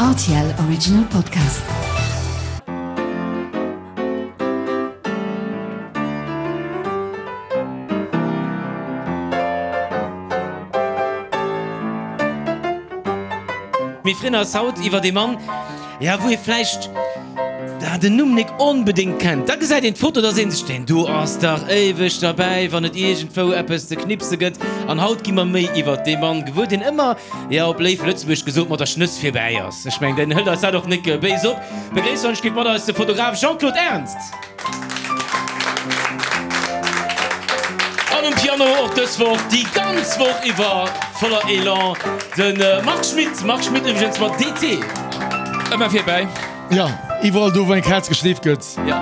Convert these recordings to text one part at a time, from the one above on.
Rtl Original Podcast. Mir freeën eis haut iwwert ee Mann, ja wou ee vläicht den Numm nik onbedéngt kennt. Da gesäit een d'Foto, da seet een sech, deen do ass dach éiweg derbäi, wann et iergendwou eppes ze knipse gëtt. An haut gi mer méi iwwert dee Mann gewuer, deen ëmmer, ja op léif Lëtzebuergesch gesot, mat der Schnëss virbäi ass. Ech mengen, deen hëlt eis dat och nik béis op. Begréisst gitt mat eis de Fotograf Jean-Claude Ernst. An um Piano och dës Woch, déi ganz Woch iwwer voller Elan, de Marc Schmitt. Marc Schmitt iwwregens mat DT. Ëmmer virbäi. Jo, iwwerall do wou eng Kaz geschleeft gëtt. Jo.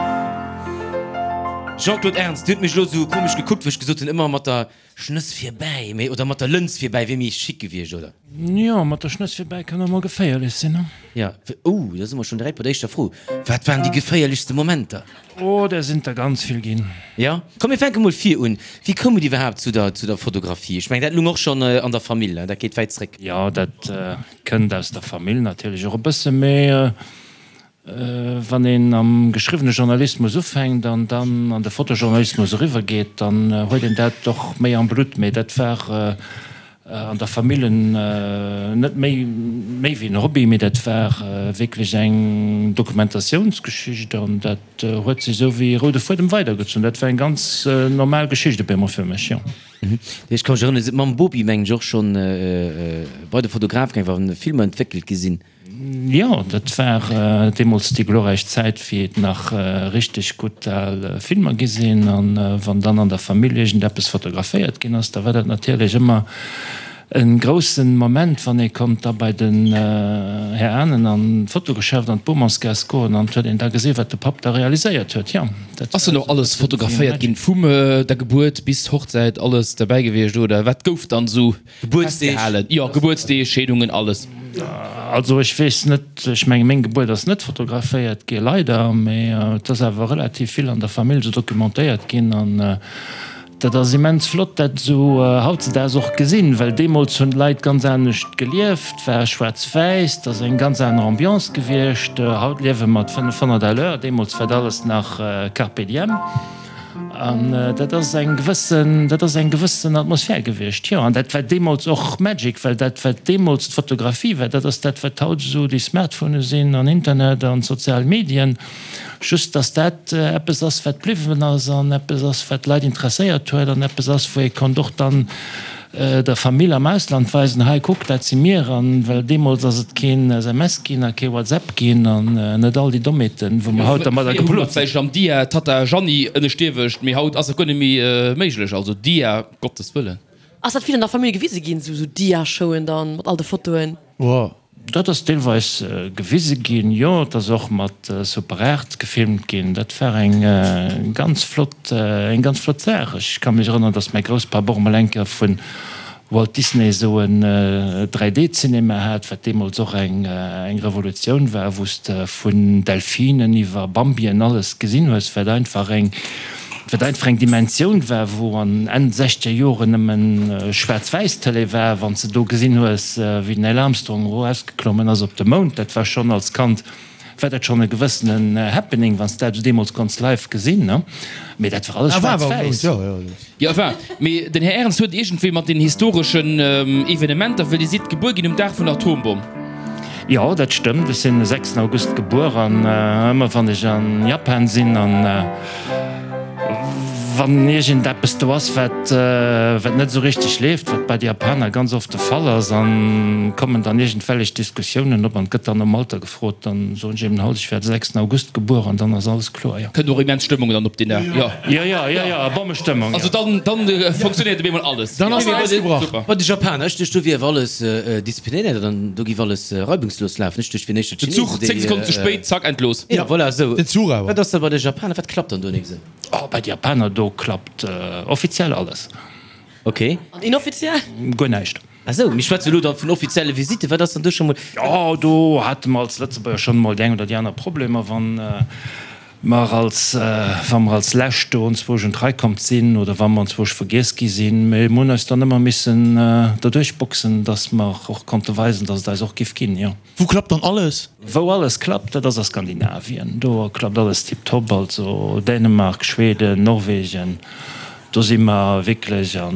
Jean-Claude Ernst, Dir hutt mech elo esou komesch gekuckt, wou ech gesot hunn, ëmmer mat der Schnëss virbäi, mee, oder mat der Lëns virbäi wier méi chic gewiescht, oder? Jo, mat der Schnëss virbäi kann och mol geféierlech sinn, ne? Jo, oh, da si mer schonn direkt bei der éischter Fro. Wat waren déi geféierlechste Momenter? Oh, där sinn der ganz vill ginn. Jo? Komm, mir fänke mol vir un. Wéi koum et iwwerhaapt zu der, zu der Fotografie? Ech mengen, dat lung och schonn an der Famill, ne? Dat geet wäit zréck. Jo, dat kënnt aus der Famill natierlech och e bësse, mee Wann een am geschriwwene Journalismus ufänkt an dann an de Fotojournalismus eriwwer geet, dann huet een dat och méi am Blutt. Mee dat war an der Famill net méi méi wéi en Hobby, mee dat war wierklech eng Dokumentatiounsgeschicht an dat huet sech esou wéi e roude Fuedem weidergezunn. Dat war eng ganz normal Geschicht op eemol fir mech, jo. Ech ka mech erënneren, Dir sidd mam Bopi, mengen ech, och schonn bei de Fotograf gaangen, wa Filmer entwéckelt gi sinn. Jo, dat war deemools déi glorräich Zäit, wéi et nach richteg gutt al Filmer gi sinn. An wann dann an der Famill iergendeppes fotograféiert ginn ass, da war dat natierlech ëmmer e grousse Moment, wann ee konnt da bei den Här Ahnen an d'Fotogeschäft an d'Bomansgaass goen an et huet een da gesi wat de Papp da realiséiert huet. Jo, dat Ass dann och alles fotograféiert ginn, vum der Gebuert bis Hochzäit, alles derbäi gewiescht oder wat gouf dann esou Gebuertsdeeg? Jo, Gebuertsdeeg, Scheedungen, alles. Also ech weess net, ech menge meng Gebuert ass net fotograféiert gi leider, mee et ass awer relativ vill an der Famill esou dokumentéiert ginn an dat ass immens flott dat esou hautzedaags och gesinn, well deemools hunn d'Leit ganz anescht gelieft, war schwaarz-wäiss, et ass eng ganz aner Ambiance gewiescht. Haut liewe mer 500 à l'heure, deemools war dat alles nach Carpe diem. An dat ass eng gewëssen, dat ass eng gewëssen Atmosphär gewiescht, jo. An dat war deemools och Magic, well dat, wat deemools d'Fotografie war, dat ass dat, wat haut esou déi Smartphonë sinn an Internet an d'sozial Medien. Just, dass dat eppes ass, wat bliwwen ass an eppes ass, wat d'Leit interesséiert huet an eppes ass, wou ee konnt och dann der Famill am Ausland weisen, hei kuck, dat si mir. An well deemools ass et keen SMS ginn a kee WhatsApp ginn an net all déi Dommheeten, wou mer haut dermadder Fréier hu mer geplot sinn. vläicht am Dia Tatta Jeanny ënneschtierwecht, mee haut ass dat guer net méi méiglech. Also Dia, Gottes Wëllen. Ass dat vill an der Famill gewise ginn, sou Dia-Showen dann mat all de Fotoen? Oh, dat ass deelweis gewise ginn, jo. Et ass och mat Super 8 gefilmt ginn. Dat war eng ganz flott, eng ganz flott Saach. Ech ka mech erënneren, datt mäi Grousspapp och emol eng Kéier vu Walt Disney esou en 3D-Cinema hat, wat deemools och eng Revolutioun war, wou s de vun Delfinen iwwer Bambien alles gesinn hues, wat einfach eng Wat einfach eng Dimensioun war, wou an Enn sechzeger Joren nëmmen Schwaarz-Wäiss-Tëlee war. Wann s de do gesinn hues, wéi den Neil Armstrong erausgeklommen ass op de Mound, dat war schonn als Kand war dat schonn e gewëssenen Happening, wann s de dat deemools konns live gesinn, ne? Mee dat war alles schwaarz-wäiss. Jo, enfin, mee den Här Ernst huet iergendwéi mat den historeschen Evenementer, well Dir sidd gebuer ginn um Dag vun der Atombomm. Jo, dat stëmmt. Ech sinn de sechsten August gebuer an ëmmer wann ech an Japan sinn an wann iergendeppes do ass, wat wat net esou richteg leeft, wat bei de Japaner ganz oft de Fall ass, an kommen dann iergendwellech Diskussiounen op an et gëtt dann nom Alter gefrot, dann soen ech eben halt, ech wär de sechsten August gebuer an dann ass alles kloer, jo. Kënnt och immens Stëmmung dann op deen Dag, jo. Jo, jo, jo, jo, Bommestëmmung, jo. Also dann, dann funktionéiert op eemol alles. Dann ass d'Eis gebrach. Bei de Japaner, ech duecht do wier awer alles disziplinéiert an do giff alles reibungslos lafen. Ech duecht wier éischter Den Zuch 10 Sekonnen ze spéit, zack, endlos. Jo, voilà, esou. Den Zuch awer. Wat ass da bei de Japaner, wat klappt dann do nik esou? Oh, bei de Japaner, do klappt offiziell alles. Ok. An inoffiziell? Guer näischt. Ah sou, mir schwätze elo dann vun offizielle Visitten. Wat ass dann do scho mol? Jo, do hate mer als Lëtzebuerger schonn emol déi eng oder déi aner Problemer, wann. Mer als, wa mer als Lescht do onzwousch un d'Rei komm sinn oder wa mer onzwousch vergiess gi sinn, mee mer hunn eis dann ëmmer missen derduerch boxen, dass mer och konnte weisen, dass et eis och giff ginn, jo. Wou klappt dann alles? Wou alles klappt, dat ass a Skandinavien. Do klappt alles tiptop, also Dänemark, Schweden, Norwegen, do si mer wierklech a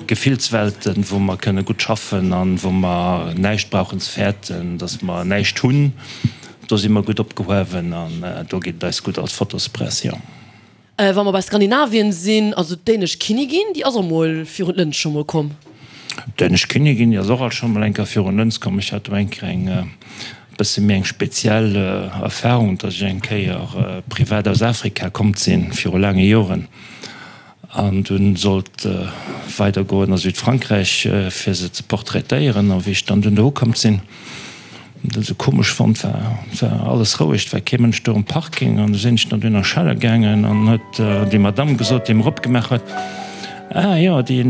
Gefillswelten, wou mer kënne gutt schaffen an wou mer näischt brauchen ze fäerten, dass mer näischt hunn. Do si mer gutt opgehuewen an do geet et eis gutt als Fotospress, jo. Wa mer bei Skandinavien sinn, also d'dänesch Kinnigin, déi ass och mol virun d'Lëns scho mol komm. D'dänesch Kinnigin, déi ass och alt scho mol eng Kéier virun d'Lëns komm. Ech hat do eng Kéier eng bësse méi eng speziell Erfahrung, datt ech eng Kéier privat aus Afrika komm sinn, viru laange Joren. An dunn sollt weider goen a Südfrankräich fir se ze portraitéieren. A wéi ech dann dunn do ukomm sinn, dat esou komesch fonnt, war war alles roueg, et war kee Mënsch do um Parking. An du sinn ech dann dunn a Schelle gaangen an huet déi Madamm gesot, déi mer opgemaach huet, Ah jo, déi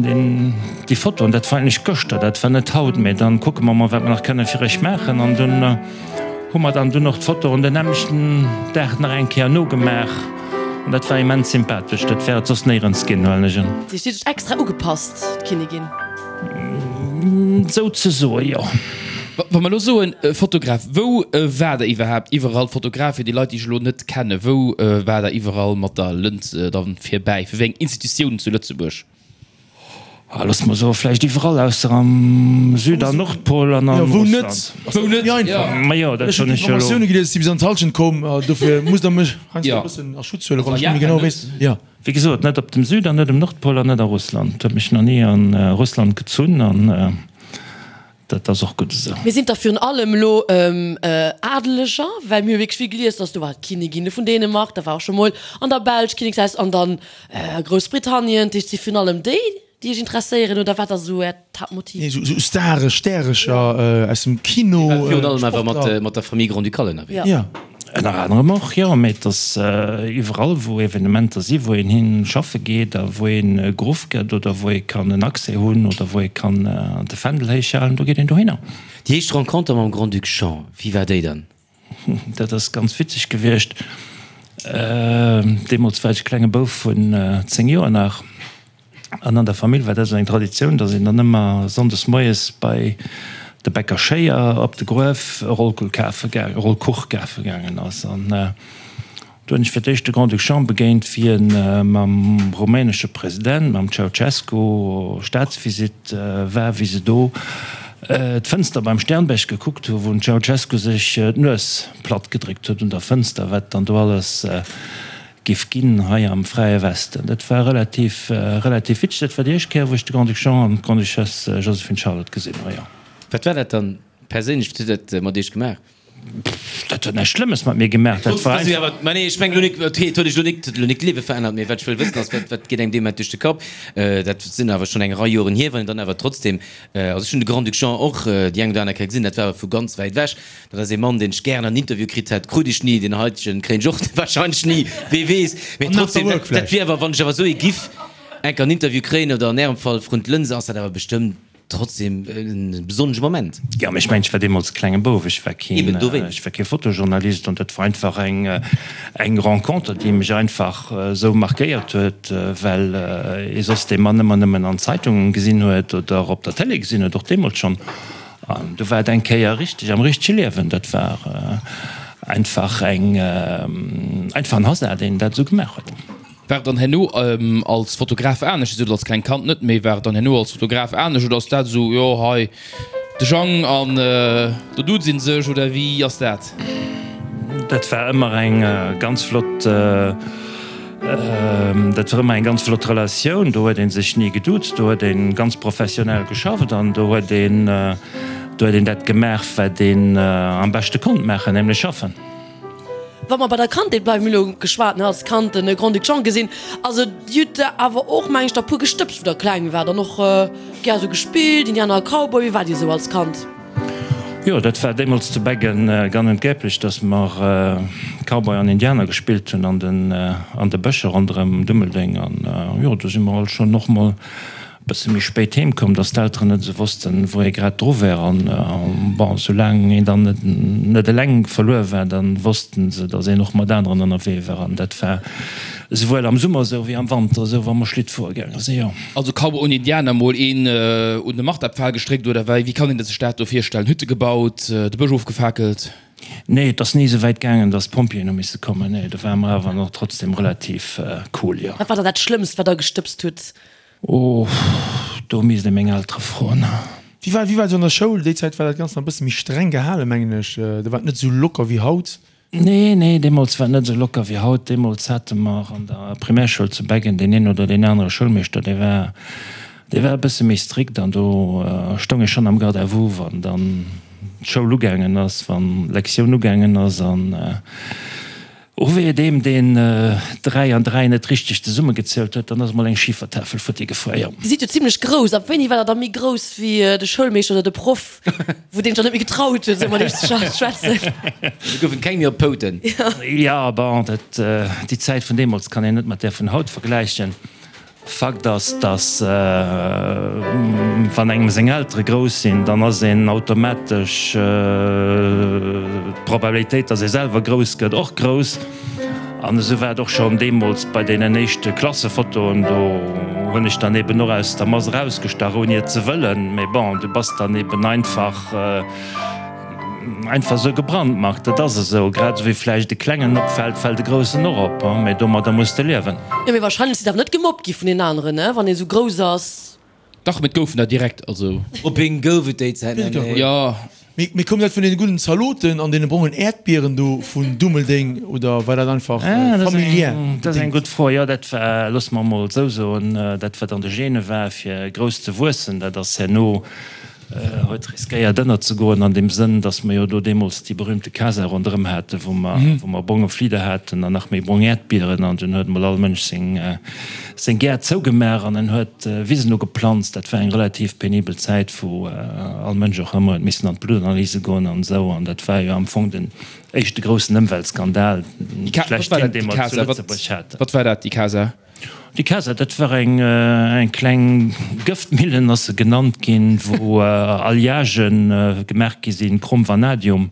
déi Fotoen, dat war eigentlech gëschter, dat war net haut, mee dann kucke mer mol wat mer nach kënne fir iech maachen. An dunn hu mer dann dunn och d'Fotoen den nämmlechten Dag nach eng Kéier nogemaach. An dat war immens sympathesch. Dat wär et soss néierens ginn, huelen ech un. Si huet sech extra ugepasst, d'Kinnigin. Souzesoe, jo. Wa mer elo soen Fotograf, wou war der iwwerhaapt iwwerall Fotograf? Fir déi Leit, déi ech elo net kennen, wou war der iwwerall mat der Lëns dann virbäi? Fir wéi eng Institutiounen zu Lëtzebuerg? Ah, looss mer soen, vläicht iwwerall ausser am Süd an Nordpol an a Jo, wou net? Russland. Ass dat net méi einfach? Ma jo, dat Ech hunn hunn ech jo elo. Informatioune gelies, déi bis an d'Hallschent komm. Dofir musst Der mech heiansdo Jo. e bëssen a Schutz huelen, Also wann a ech net méi Japan genau net. weess. Jo. Wéi gesot, net op dem Süd an net um Nordpol an net a Russland. Et huet mech nach ni a Russland gezunn an dat ass och gutt esou. Mir sinn da virun allem elo Adeleger, well mir hu wierklech vill gelies, dass do war d'Kinnigin vun Dänemark, da war och scho mol an der Belsch Kinnekshaus an dann Groussbritannien. Dat heescht, et si virun allem déi, déi Iech interesséieren, oder wat ass esou Äert Haaptmotiv? Nee, esou Stare, Stärecher aus dem Kino, Dir waart virun allem awer Sportler. mat der Famille Grand-Ducale ënnerwee. Ja. Ënner anerem och, jo. Mee et ass iwwerall, wou Evenementer si wou een hi schaffe geet a wou ee geruff gëtt oder wou ee kann en Accès hunn oder wou ee kann de Fändel héich halen, do geet een dohinner. Déi éischt Renconter mam Grand-Duc Jean, wéi war déi dann? Dat ass ganz witzeg gewiescht. Deemools war ech e klenge Bouf vun 10 Joer nach. An an der Famill war dat esou eng Traditioun, datt een dann ëmmer sonndes moies bei de Bäcker Schéier op de Gruef e Rollkuch kafe gaangen, e Rollkuch kafe gaangen ass. An do hunn ech fir d'éischt de Grand-Duc Jean begéint, wéi e mam rumänesche President, mam Ceaucescu, Staatsvisitt war, wéi se do d'Fënster beim Sternberg gekuckt hu, wou den Ceaucescu sech d'Nues platt gedréckt huet un der Fënster, wat dann do alles Giff ginn hei am fräie Westen. Dat war relativ, relativ witzeg. Dat war déi éischt Kéier, wou ech de Grand-Duc Jean an d'Grande-Duchesse Joséphine Charlotte gesinn hu, jo. Wat war dat dann perséinlech? Wat huet dat mat Iech gemaach? Dat huet näischt Schlëmmes mat mir gemaach. Dat war einfach. Mä nee, ech mengen elo nik, et huet Iech elo nik, elo nik d'Liewe verännert, mee wat ech wëll wëssen ass, wat, wat geet engem dee Moment duerch de Kapp? Dat sinn awer schonn eng Rei Joren hier, wann een dann awer trotzdem, also ech hunn de Grand-Duc Jean och déi eng oder aner Kéier gesinn, dat war awer vu ganz wäit ewech. Dat ass ee Mann, deen ech gären an Interview kritt hätt, krut ech ni. Deen heitegen kréien ech och wahrscheinlech ni, wee weess. Mee trotzdem, dat, dat wier awer, wann ech awer esou ee giff enk an Interview kréien oder an Ärem Fall vrun d'Lënse, ass dat awer bestëmmt trotzdem e besonnesche Moment. Jo, mee ech mengen, ech war deemools e klenge Bouf, ech war keen, Eben, dowéinst. ech war kee Fotojournalist an dat war einfach eng, eng Renconter, déi mech einfach esou markéiert huet, well ee soss dee Mann ëmmer nëmmen an Zeitungen gesinn huet oder op der Télé gesinn huet, och deemools schonn. An du war et eng Kéier richteg am richtege Liewen. Dat war einfach eng, einfach en Hasard, deen dat esou gemaach huet. War et dann herno als Fotograf anescht? Dir sot als klengt Kand net méi. War et dann herno als Fotograf anescht oder ass dat esou, jo hei de Jang an do duze sech oder wéi ass dat? Dat war ëmmer eng ganz flott. Dat war ëmmer eng ganz flott Relatioun. Do huet ee sech ni geduuzt, do huet ee ganz professionell geschafft an do huet een, do huet een dat gemaach, wat een am beschte konnt maachen, nämlech schaffen. Wa mer bei der Kandheet bleiwen, mir hu lo geschwat, ne, als Kand de Grand-Duc Jean gesinn. Also Dir hutt der awer och, meng ech, der puer gestëbst, wou der kleng waart an och gär esou gespillt, Indianer a Cowboy. Wéi waart Dir esou als Kand? Jo, dat war deemools zu Beggen gang und gäblich, dass mer Cowboy an Indianer gespillt hunn an den an de Bëscher ronderëm Dummeldeng. An jo, do si mer alt schonn och mol e Bësse méi spéit heem koum, dass d'Elteren net esou wossten, wou ee grad dru wär. An, bon, soulaang een dann net, net eleng verluer war, da wossten se, dass een och mat aneren ënnerwee war. An dat war esouwuel am Summer esou wéi am Wanter esou, wa mer Schlitt fuere gaange sinn, jo. Also Cowboy und Indianer, mol een un de Marterpfahl gestréckt, oder wéi? Wéi kann een sech dat do virstellen? Hütte gebaut, de Bësch ofgefakelt? Nee, et ass ni esou wäit gaangen, dass d'Pompjeeën hu misse kommen. Nee, do ware mer awer nach trotzdem relativ cool, jo. Wat war dann dat Schlëmmst, wat der gestëbst hutt? Oh, do misst ee meng Eltere froen. Wéi war, wéi war et esou an der Schoul? Déi Zäit war dat Ganzt nach e bësse méi streng gehalen, mengen ech. Do war et net esou locker wéi haut. Nee, nee, deemools war et net esou locker wéi haut. Deemools hate mer an der Primärschoul zu Beggen deen een oder deen anere Schoulmeeschter, dee war, dee war e bësse méi strikt an do stoung ee schonn am Garde à vous, wann dann d'Schoul ugaangen ass, wann d'Lektioun ugaangen ass an O wéi et eem deen 3 an 3 net richteg zesummegezielt huet, dann ass emol eng Schifertafel futti gefuer, jo. Dir sidd jo zimlech grouss. Ab wéini war der da méi grouss wéi de Schoulmeeschter oder de Proff, wou deen sech dann net méi getraut huet, esou mat iech ze schwätzen? Do goufen et keng méi op d'Pouten. Jo, bon, dat, déi Zäit vun deemools kann een net mat där vun haut vergläichen. Fakt ass, dass wann engem seng Eltere grouss sinn, dann ass een automatesch d'Probabilitéit, dass ee selwer grouss gëtt, och grouss. An esou war et och schonn deemools bei deenen éischte Klassefotoen. Do hunn ech dann eben och aus der Mass erausgestach, ouni et ze wëllen. Mee bon, du bass dann eben einfach. Einfach esou gebrandmarkt, dat ass esou. Grad esou wéi vläicht e Klengen opfält, fält e Groussen och op. Mee domadder muss de liewen. Jo, mee wahrscheinlech sidd awer net gemobbt gi vun den aneren, ne, wann ee sou grouss ass. Dach, mee et goufen der direkt, also. Mobbing gouf et déi Zäit nach, nee. Jo. Mee koum dat vun deene gudden Zaloten an deene brongen Äerdbieren do vun Dummeldeng oder war dat einfach familiär bedéngt? Dat ass eng gutt Fro. Jo, dat war, loosse mer emol esou soen, dat wat an de Gene war, fir grouss ze wuessen, dat ass herno Huet riskéiert ënnerzegoen an deem Sënn, datt mer jo do deemools déi berühmte Casa ronderëm haten, wou mer, wou mer bronge Flieder haten an nach méi brong Äerdbieren an dunn huet emol all Mënsch seng, seng Gäert zougemaach an en huet Wisen ugeplanzt. Dat war eng relativ penibel Zäit, wou all Mënsch och ëmmer huet missen an d'Bluttanalyse goen an esou an dat war jo am Fong den éischte groussen Ëmweltskandal schlechthin, dee mer zu Lëtzebuerg haten. Wat war dat, déi Casa? Déi Casa, dat war eng eng kleng Gëftmillen, ass se genannt ginn, wou Alliagë gemaach gi sinn, Chrom, Vanadium.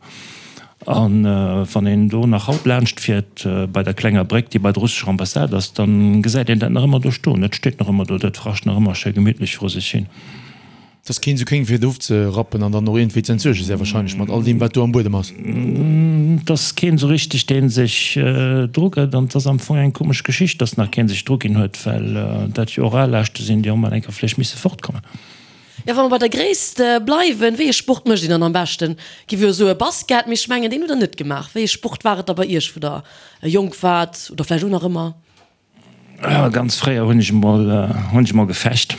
A wann een do nach haut laanscht fiert, bei der klenger Bréck, déi bei der russescher Ambassade ass, da gesäit een dat nach ëmmer do stoen. Dat steet nach ëmmer do, dat rascht nach ëmmer schéi gemittlech vru sech hin. Et ass keen esou kéng fir et ofzerappen an dann och iergendwéi ze entsuergen, sehr wahrscheinlech mat all deem wat do am Buedem ass. Et ass keen esou richteg deen sech dru gëtt an et ass am Fong eng komesch Geschicht, dass nach keen sech dru ginn huet, well dat jo och Alaaschte sinn, déi och mol eng Kéier vläicht misse fortkommen. Jo, wa mer bei der Gréisst bleiwen, wéi ee Sport mécht een dann am beschten? Giff jo soe Basket, mee ech mengen deen hutt der net gemaach. Wéi ee Sport war et da bei iech wou der jonk waart oder vläicht och nach ëmmer? Ganz fréier hunn ech emol, hunn ech emol gefecht.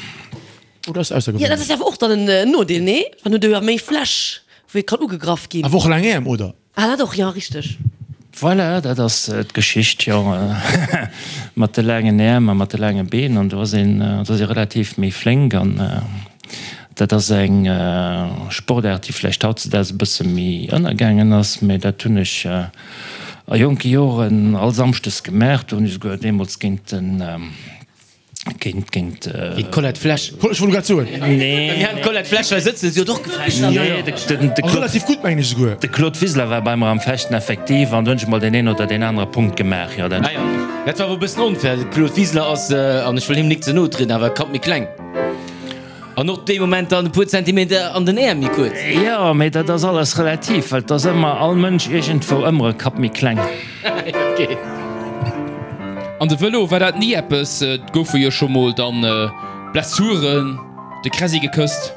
Oh, dat ass aussergewéinlech. Jo, dat ass awer och dann en Nodeel, nee? Dann huet e jo méi Fläch, wou ee kann ugegraff ginn. Awer och laang Äerm, oder? Ah, dat och, jo, richteg. Voilà, dat ass d'Geschicht, jo, mat de laangen Äerm a mat de laange Been. An do ass een, do ass ee relativ méi flénk. An dat ass eng Sportaart, déi vläicht hautzedaags e bësse méi ënnergaangen ass, mä dat hunn ech A jonke Joren all Samschdes gemaach. Do hunn ech esouguer deemools géint den, géint, géint. Géint d'Colette Flesch. Ech wollt grad soen. Nee. Mir haten d'Colette Flesch hei sëtzen, si huet och gefecht. Nee, de, de, de A relativ gutt, mengen ech esouguer. De Claude Wiseler war bei mer am Fechten effektiv an do hunn ech emol deen een oder deen anere Punkt gemaach, jo, dat. Ah jo, dat war awer e bëssen onfair. De Claude Wiseler ass, an ech wëll him nik ze no trieden, awer e Kapp méi kleng. An och dee Moment dann e puer Zentimeter an den Äerm méi kuerz. Jo, mee dat ass alles relativ, well et ass ëmmer all Mënsch iergendwou ëmmer e Kapp méi kleng. Ok. An de Vëlo, war dat ni eppes? Et goufe jo scho mol dann Blessuren, de Kräsi gekësst.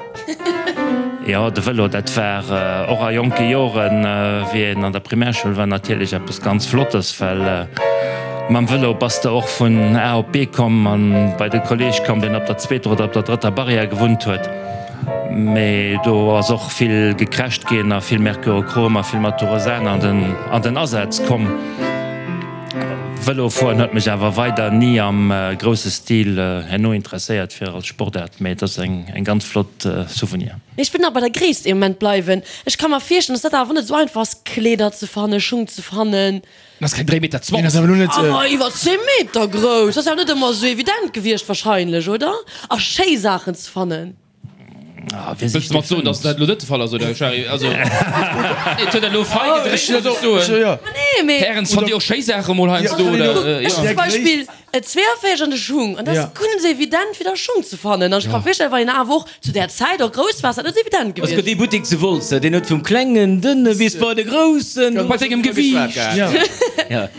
Jo, de Vëlo, dat war och a jonke Joren, wéi een an der Primärschoul war, natierlech eppes ganz Flottes, well Mam Vëlo bass de och vun A op B komm an bei de Kolleg komm, deen op der zweeter oder op der drëtter Barrière gewunnt huet. Mee do ass och vill gecrasht ginn a vill Mercurochrom a vill Maturosan an den an den Asaz komm. Vëlofueren huet mech awer weider ni am grousse Stil herno interesséiert fir als Sportaart, mee et ass eng ganz flott Souvenir. Mee ech wëll nach bei der Gréisst ee Moment bleiwen. Ech ka mer virstellen, dass dat awer net esou einfach ass, Kleeder ze fannen, Schung ze fannen. En ass keng 3 Meter 20. Awer iwwer 10 Meter grouss, ass awer net ëmmer esou evident gewiescht wahrscheinlech, oder? A schéi Saachen ze fannen. Wëlls de mat soen, dass dat elo net de Fall ass, oder, Shari? Also, et huet elo fei gedréckt, muss ech soen. Nee, mee. Hären, fannt Dir och schéi Saache mol heiansdo, oder? Ech hunn zum Beispill e 42 an de Schung, an dat ass guer net esou evident, fir da Schung ze fannen. An ech ka mer virstellen, wann een awer och zu där Zäit och grouss war, ass dat net esou evident Es gëtt gewiescht. ee Buttek zu Wolz, deen huet vum klengen, dënne bis bei de groussen. Bei dengem Gewiicht.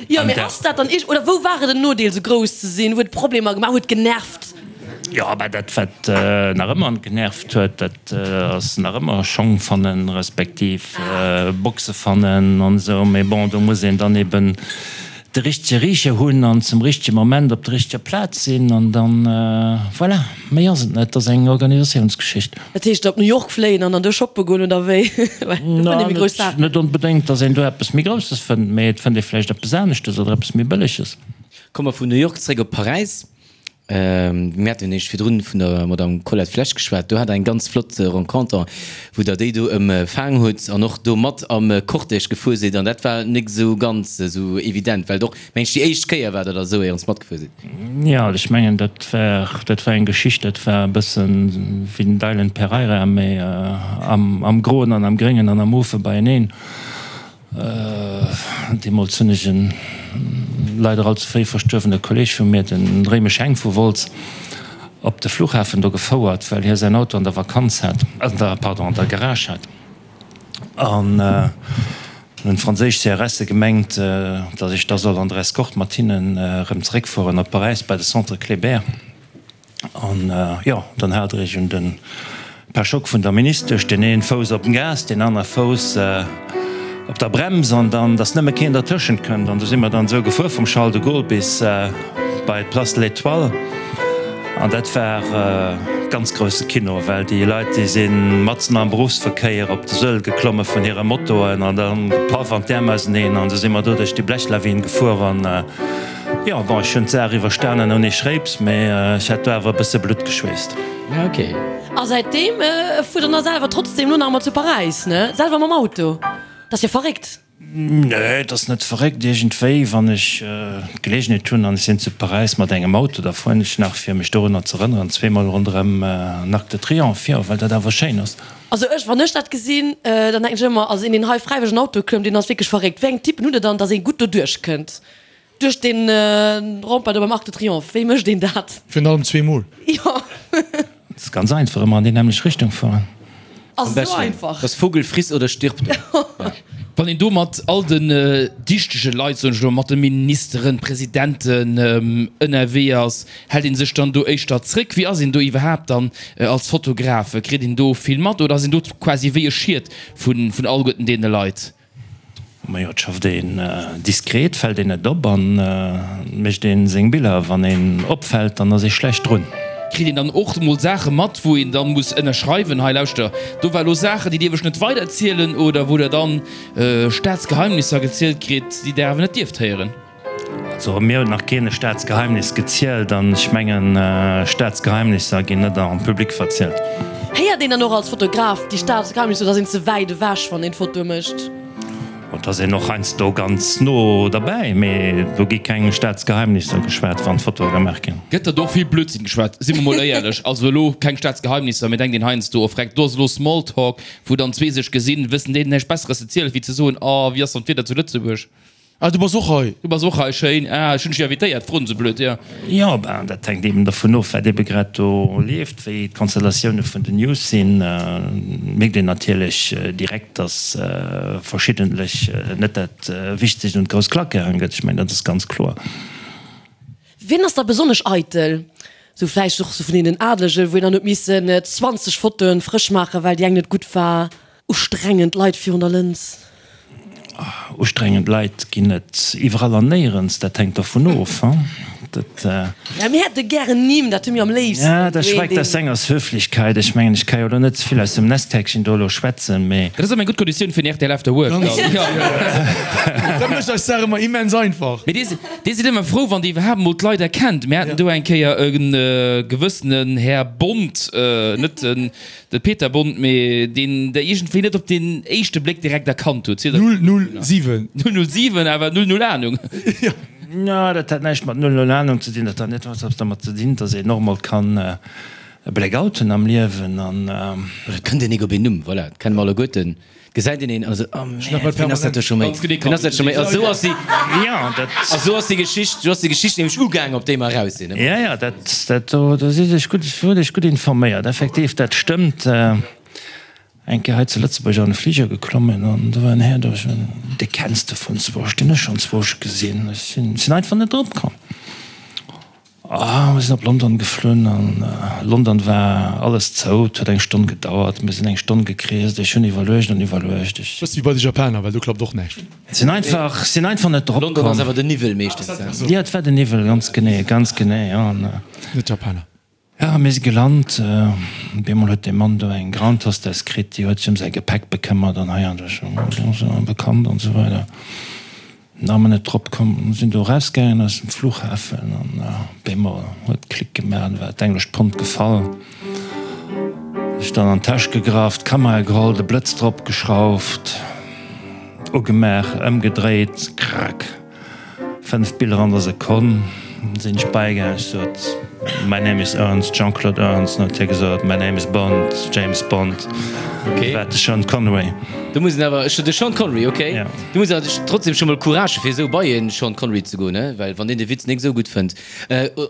Jo, mee ass dat dann iergend, oder wou war et en Nodeel, esou grouss ze sinn? Huet Problemer gemaach? Huet genervt? Jo, mä dat wat nach ëmmer genervt huet, dat ass nach ëmmer Schong fannen, respektiv Boxe fannen an esou. Mee bon, do muss een dann eben de richtege Richer hunn an zum richtege Moment op der richteger Plaz sinn an dann, voilà, méi ass et net. Et ass eng Organisatiounsgeschicht. Dat heescht op New York fléien an dann do shoppe goen, oder wéi? Well do fënnt ee méi grouss Saachen. Net onbedéngt, datt een do eppes méi Grousses fënnt, mee et fënnt ee vläicht eppes aneschtes oder eppes méi Bëlleges. Komme mer vun New York zréck op Paräis. Mir haten jo eréischt virdrun vun der Madame Colette Flesch geschwat. Do hat Der eng ganz flott Renconter, wou Der déi do ëmfaang hutt an och do mat am Cortège gefuer sidd. An dat war nik esou ganz esou evident, well et och, meng ech, déi éischt Kéier war, datt Der esou éierens matgefuer sidd. Jo, ech mengen, dat war, dat war eng Geschicht, dat war e bëssen wéi den Dylan Pereira, mee am Groen an am Gréngen an am Mofe beieneen. Deemools hunn ech en leider all ze fréi verstuerwene Kolleeg vu mir, den Réimesch Heng vu Wolz, op de Flughafen do gefouert, well hie säin Auto an der Vakanz hat, an der, pardon, an der Garage hat. An hunn d'franséisch CRSe gemengt, datt ech da soll an der Escorte mat hinnen erëm zeréckfueren op Paräis bei de Centre Kléber. An jo, dann hat ech un den Pare-choc vun der Ministesch, deen een Fouss op dem Gas, deen aner Fouss op der Brems, an dann, dass nëmme keen dertëschent kënnt. An du si mer dann esou gefuer vum Charles de Gaulle bis bei d'Place de l'Étoile. An dat war ganz grousse Kino, well déi Leit, déi si matzen am Beruffsverkéier op de Suedel geklomme vun hire Motoen an dann gepaff an d'Äerm auseneen. An du si mer do duerch déi Blechlawin gefuer an, Jo, bon, ech hunn d'Saach iwwerstanen ouni Schréips, mee ech hat do awer e bësse Blutt geschweesst. Ja, ok. A säitdeem fuert der na selwer trotzdem lo nach emmer zu Paräis, ne? Selwer mam Auto? Dat ass jo verréckt. Nee, et ass net verréckt. Iergendwéi, wann ech d'Geleegenheet hunn an ech sinn zu Paräis mat engem Auto, da fueren ech nach, fir mech dorunner z'erënneren, zweemol ronderëm den Arc de Triomphe, jo, well dat awer schéin ass. Also ech, wann ech dat gesinn, dann denken ech ëmmer, also een deen hei fräiwëlleg an Auto klëmmt, deen ass wierklech verréckt. Wéi eng Typen hutt der dann, dass ee gutt doduerch kënnt? Duerch den Rempart do beim Arc de Triomphe, wéi mécht een dat? Virun allem zweemol. Jo. Dat ass ganz einfach, ëmmer an déi nämmlecht Richtung fueren. Ass esou einfach. Das Vogel friss oder stirb. Wann een do mat all den dichtege Leit, soen ech elo, mat de Ministeren, Presidenten ënnerwee ass, hält een sech dann do éischter zréck? Wéi ass een do iwwerhaapt dann als Fotograf? Kritt een do vill mat oder ass een do quasi wéi e Schiet vun alleguerten deene Leit? Majo, et schafft een diskret, fällt een net op an mécht een seng Biller. Wann een opfällt, dann ass ee schlecht drun. Kritt een dann och mol Saache mat, wou een dann muss ënnerschreiwen, hei lauschter, do war lo Saachen, déi dierf ech net weiderzielen, oder wou der dann Staatsgeheimnisser gezielt kritt, déi der awer net dierft héieren? Also mir huet nach keen e Staatsgeheimnis gezielt an ech mengen, Staatsgeheimnisser ginn net en public verzielt. Héiert een dann och als Fotograf déi Staatsgeheimnisser oder ass een ze wäit ewech wann een Fotoe mécht? Et ass een och heiansdo ganz no derbäi, mee do gi keng Staatsgeheimnisser geschwat wann Fotoe gemaach ginn. Gëtt der do och vill Blödsinn geschwat, si mer mol éierlech. Also elo keng Staatsgeheimnisser, mee denkt een heiansdo, oh freck, do ass elo Smalltalk, wou dann zwee sech gesinn, wëssen déi näischt Besseres ze zielen, wéi ze soen, oh wéi ass dann d'Wieder zu Lëtzebuerg? Ah, du bass och hei? Du bass och hei, schéin. Ah, ech hunn dech jo invitéiert, froen se blöd, jo. Jo, ben, dat hänkt eben dervun of, wat ebe grad do leeft, wéi d'Konstellatioune vun den News sinn. Mierkt een natierlech direkt, datt verschiddentlech net dat Wichtegst un d'grouss Klack gehaang gëtt. Ech mengen, dat ass ganz kloer. Wien ass da besonnesch eitel? Sou vläicht och sou vun deenen Adelegen, wou een dann huet missen 20 Fotoen frësch maachen, well déi eng net gutt war. Ustrengend Leit virun der Lëns. Ustrengend Leit ginn et iwwerall an néierens. Dat hänkt dervun of. Dat. Ja, mir hätte gären Nimm, dat hu mir am léifsten. Ja, dat schweigt aus senger's Höflichkeit. Ech mengen, ech ka jo elo net ze vill aus dem Nestkäckchen do elo schwätzen, mee. Dat ass ëmmer eng gutt Konditioun fir en rtl After Work dann. Dat mécht eis d'Saach ëmmer immens einfach. Mee dir, dir sidd ëmmer frou, wann dir iwwerhaapt emol d'Leit erkennt. Mir haten do eng Kéier e gewëssenen Här Bond, net den De Peter Bond, mee deen der iergendwéi net op den éischte Bléck direkt erkannt hutt. 007. 007, awer 00 Ahnung. Jo, dat hat näischt mat 00 Ahnung ze dinn. Dat hat net eppes dermat ze dinn, dass een och mol kann e Blackout hunn am Liewen an. Oder et kënnt een nik op een Numm, voilà, dat kenne mer alleguerten. Gesäit een een an esou, oh Mäert, wien ass dat do scho méi? Wien ass dat scho méi? A sou ass déi, a sou ass déi Geschicht, sou ass déi Geschicht nämlech ugaang, op déi mer eraus sinn. Jo, jo, dat, dat do, do sidd Iech gutt, hutt Iech gutt informéiert. Effektiv, dat stëmmt. Eng Kéier hei zu Lëtzebuerg an e Fliger geklommen an do war en Här do, ech mengen, dee kenns de vun zwousch, deen hu ech schonn zwousch gesinn. Ech sinn, sinn einfach net drop komm. Ah, mir sinn op London geflunn an London war alles zou. Et huet eng Stonn gedauert. Mir sinn eng Stonn gekreest. Ech hunn iwwerluecht an iwwerluecht. Ech. Bëssi wéi bei de Japaner, well do klappt och näischt. Sinn einfach, sinn einfach net drop London ass komm. awer den Niwwel meeschtens, ne? Jo, et war den Niwwel, ganz genee, ganz genee, jo. An. Net d'Japaner. Jo, mir si gelant. Op eemol huet dee Mann do eng Ground Hostess kritt, déi huet sech ëm säi Gepäck bekëmmert an hei an do, bekannt an esou weider. Na mer net drop komm, sinn do erausgaangen aus dem Flughafen an op eemol huet Klick gemaach an war d'englescht Pond gefall. Ech dann an d'Täsch gegraff, d'Kamera geholl, de Blëtz drop geschrauft, ugemaach, ëmgedréit, krack, 5 Biller an der Sekonn. Sinn ech beigaangen, ech sot, My name is Ernst, Jean-Claude Ernst, an huet hie gesot, My name is Bond, James Bond. Okay. War de Sean Connery. Do muss een awer, de Sean Connery, okay. Ja. Do muss een awer trotzdem scho mol Courage hu fir esou bei e Sean Connery ze goen, ne? Well wann deen de Witz nik esou gutt fënnt,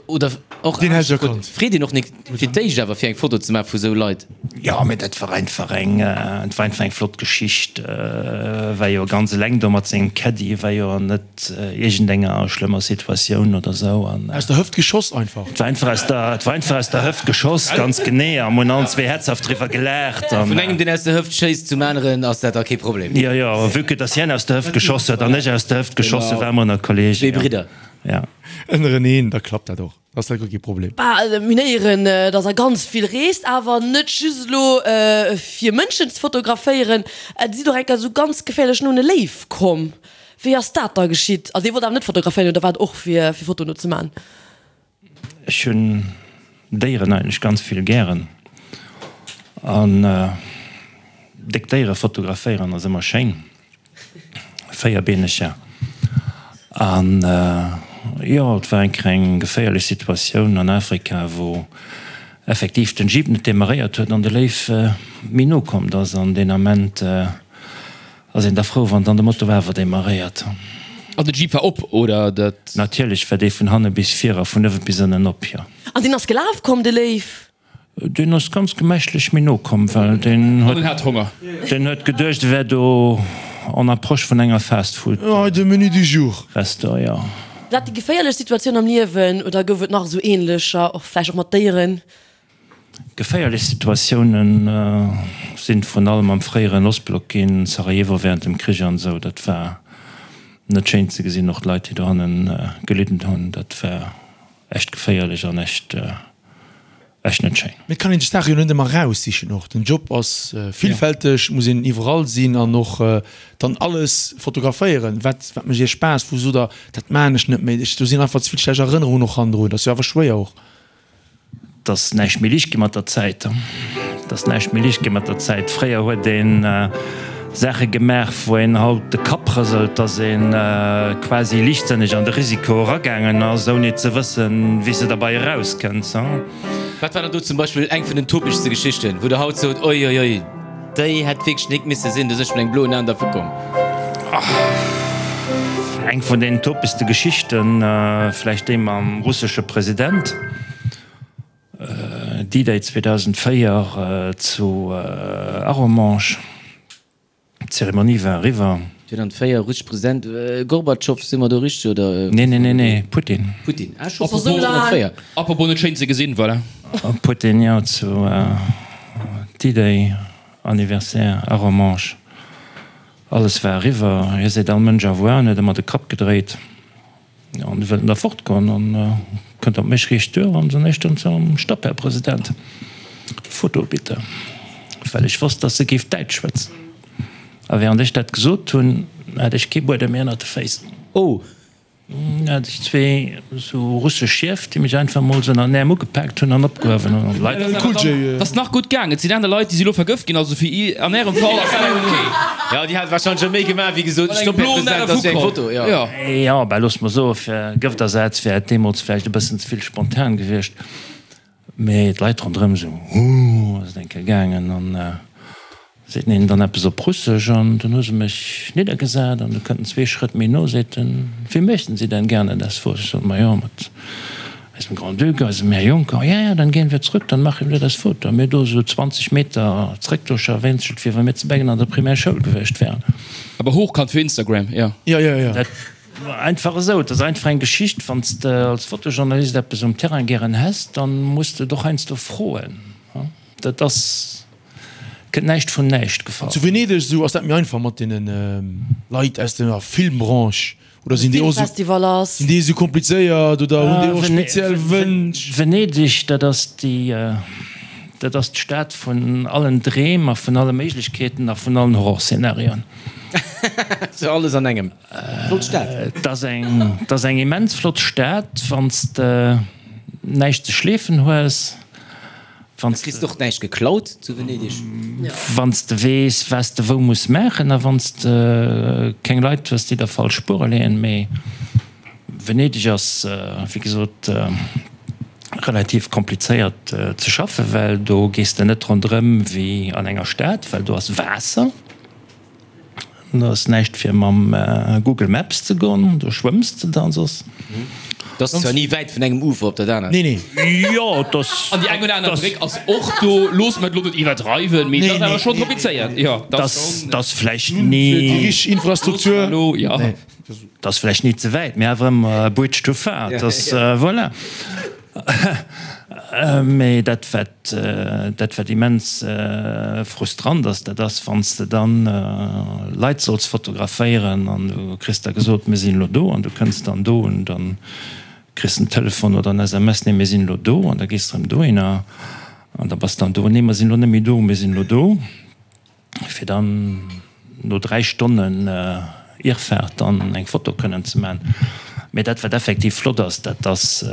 oder och Deen hätt ech erkannt. Freet een och nik fir d'éischt awer fir eng Foto ze maache vu sou Leit. Jo, mee dat war einfach eng, et war einfach eng flott Geschicht. War jo ganz eleng do mat sengem Caddy, war jo net. Iergendenger schlëmmer Situatioun oder sou an. Aus der Hëft geschoss einfach. Et war einfach aus der, et war einfach aus der Hëft geschoss, ganz genee, a mir hunn allen zwee herzhaft driwwer gelaacht an. Vun engem deen aus der Hëft schéisst zum aneren ass dat da kee Problem. Jo, jo, vue que dass hien aus der Hëft geschoss huet an ech aus der Hëft geschoss hunn, ware mer ënner Kollegen. Zwee Bridder. Ja. Ënnereneen, da klappt dat och. Ass dat guer kee Problem. Bah, mir héieren, dass Der ganz vill reest, awer net just elo fir Mënschen ze fotograféieren. Et sidd och eng Kéier esou ganz geféierlech no un e Léiw komm. Wéi ass dat da geschitt? Also Dir wollt awer net fotograféieren oder war et och fir fir Fotoen do ze man? Ech hunn Déieren eigentlech ganz vill gären an déck Déiere fotograféieren ass ëmmer schéin. Véierbeeneger. An jo, et war eng kleng geféierlech Situatioun an Afrika, wou effektiv den Jeep net demarréiert huet an de Léiw méi no kommt ass. An deen Ament ass een da frou, wann dann de Moto awer demarréiert. An de Jeep war op, oder dat? Natierlech war dee vun hanne bis vir a vun uewe bis ënnen op, jo. An deen ass gelaf komm, de Léiw? Deen ass ganz gemächlech méi no komm, well deen huet, hat Honger. Deen huet geduecht, e wär do en approche vun enger Fast Food. Oh, de Menu du jour. Restaurant, jo. War dat déi geféierlech Situatioun am Liewen oder gouf et nach esou ähnlecher, och vläicht och mat Déieren? Geféierlech Situatiounen sinn vrun allem am fréieren Ostblock ginn, Sarajevo während dem Krich an esou. Dat war net schéin ze gesinn, och d'Leit, déi dohannen gelidden hunn, dat war echt geféierlech an echt. Echt net schéin. Mee et kann een sech d'Saache jo net ëmmer eraussichen och. Den Job ass villfälteg, et muss een iwwerall sinn an och dann alles fotograféieren. Wat wat mécht Iech Spaass? Wou sot Der, dat maachen ech net méi, ech do sinn einfach ze vill schlecht Erënnerungen och hannendrun. Dat ass jo awer schwéier och. Et ass näischt méi liicht gi mat der Zäit. Et ass näischt méi liicht gi mat der Zäit. Fréier huet een Saache gemaach, wou een haut de Kapp rëselt, dass ee quasi liichtsënneg an de Risiko eragaangen ass, ouni ze wëssen, wéi s de derbei erauskënns. Wat war dann do zum Beispill eng vun den topegste Geschichten, wou Der haut sot, Oi, oi, oi, déi hätt wierklech nik misse sinn, do sinn ech mat engem bloen Aen dervu komm? Eng vun den topegste Geschichten, vläicht déi mam russesche President. D-Day 2004 zu Arromanches, d'Zeremonie war eriwwer. 2004, russesch President Gorbatschow, si mer do richteg oder? Nee, nee, nee, nee, Putin. Putin, ah scho 2004. Apropos net schéin ze gesinn, voilà. Putin, jo, zu D-Day Anniversaire Arromanches, alles war eriwwer, hie seet all Mënsch au revoir an huet ëmmer de Kapp gedréit. An du wëllt en da fortgoen an kënnt op mech riicht duer an soen ech dann zum Stopp, Här President, Foto bitte, well ech wosst, dass se géif Däitsch schwätzen. A während ech dat gesot hunn, hat ech kee Buedem méi ënnert de Féiss. Oh! Hat ech zwee sou russesch Schief, déi mech einfach mol sou ënnert den Äerm ugepaakt hunn an opgehuewen hunn. An d'Leit. Et ass nach gutt gaang. Et sinn aner Leit, déi si lo vergëft ginn. Also fir i, an ärem Fall ass dat ok. Jo, déi hat wahrscheinlech scho méi gemaach wéi gesot, Stopp, Här President, dat ass jo eng Foto. Jo. Jo, bah looss mer soen, fir Gëftersaz wär et deemools vläicht e bëssen ze vill spontan gewiescht. Mee d'Leit ronderëm esou, Huh, ass et eng Kéier gaangen. An seet en dann eppes op Russesch an dunn hu se mech niddergesat an du kënnt en zwee Schrëtt méi no, seet en, Wie möchten Sie denn gerne das Foto? Ech sot, Ma jo, mat eisem Grand-Duc, eisem Här Juncker. Ja, ja, dann gehen wir zurück, dann machen wir das Foto. A mir do esou 20 Meter zréck, do scharwénzelt, wéi wa mir zu Beggen an der Primärschoul gewiescht wären. Awer hochkant fir Instagram, jo. Jo, jo, jo. Dat Einfach esou, et ass einfach eng Geschicht. Wann s de als Fotojournalist eppes um Terrain gären häss, dann muss de et och heiansdo froen. Dat ass, kënnt näischt vun näischt gefall. Zu Venedeg esou ass dat méi einfach mat deene Leit aus der Filmbranche, oder sinn déi och esou, sinn déi esou komplizéiert oder hunn déi och speziell Wënsch? Venedeg, dat ass déi, dat ass d'Stad vun allen Dreem a vun alle Méiglechkeeten a vun allen Horrorszenarioen. Sou alles an engem. Flott Stad. Et ass eng, et ass eng immens flott Stad, wann s de näischt ze schleefen hues, wann s Kriss de och näischt geklaut zu Venedeg? Wann s de weess, wat s de wou muss maachen a wann s de keng Leit hues, déi der falsch Spuere leeën. Mee Venedeg ass, wéi gesot, relativ komplizéiert ze schaffen, well do gees de net ronderëm wéi an enger Stad, well do ass Waasser. Do ass näischt fir mam Google Maps ze goen, do schwëmms de dann soss. Et ass zwar ni wäit vun engem Ufer op dat anert. Nee, nee. Jo, et ass. An déi eng oder aner Bréck ass och do. Loosse mer et elo net iwwerdreiwen, mee et ass awer schonn komplizéiert. Jo, et ass schonn. Et ass vläicht ni. Fir déi richteg Infrastruktur. Elo, jo. Et ass vläicht ni ze wäit, mee awer ëmmer e Bridge too far. Et ass, voilà. Mee dat wat dat wat immens frustrant ass, dat ass wann s de dann Leit solls fotograféieren an du kriss da gesot, mir sinn elo do an du kënns dann do un, dann kriss de en Telefon oder en SMS, nee mir sinn elo do an da gees de erëm dohinner an da bass dann do, nee mer sinn elo net méi do, mir sinn elo do. fir dann no 3 Stonnen Irrfahrt dann eng Foto kënnen ze man. Mee dat wat effektiv flott ass, dat ass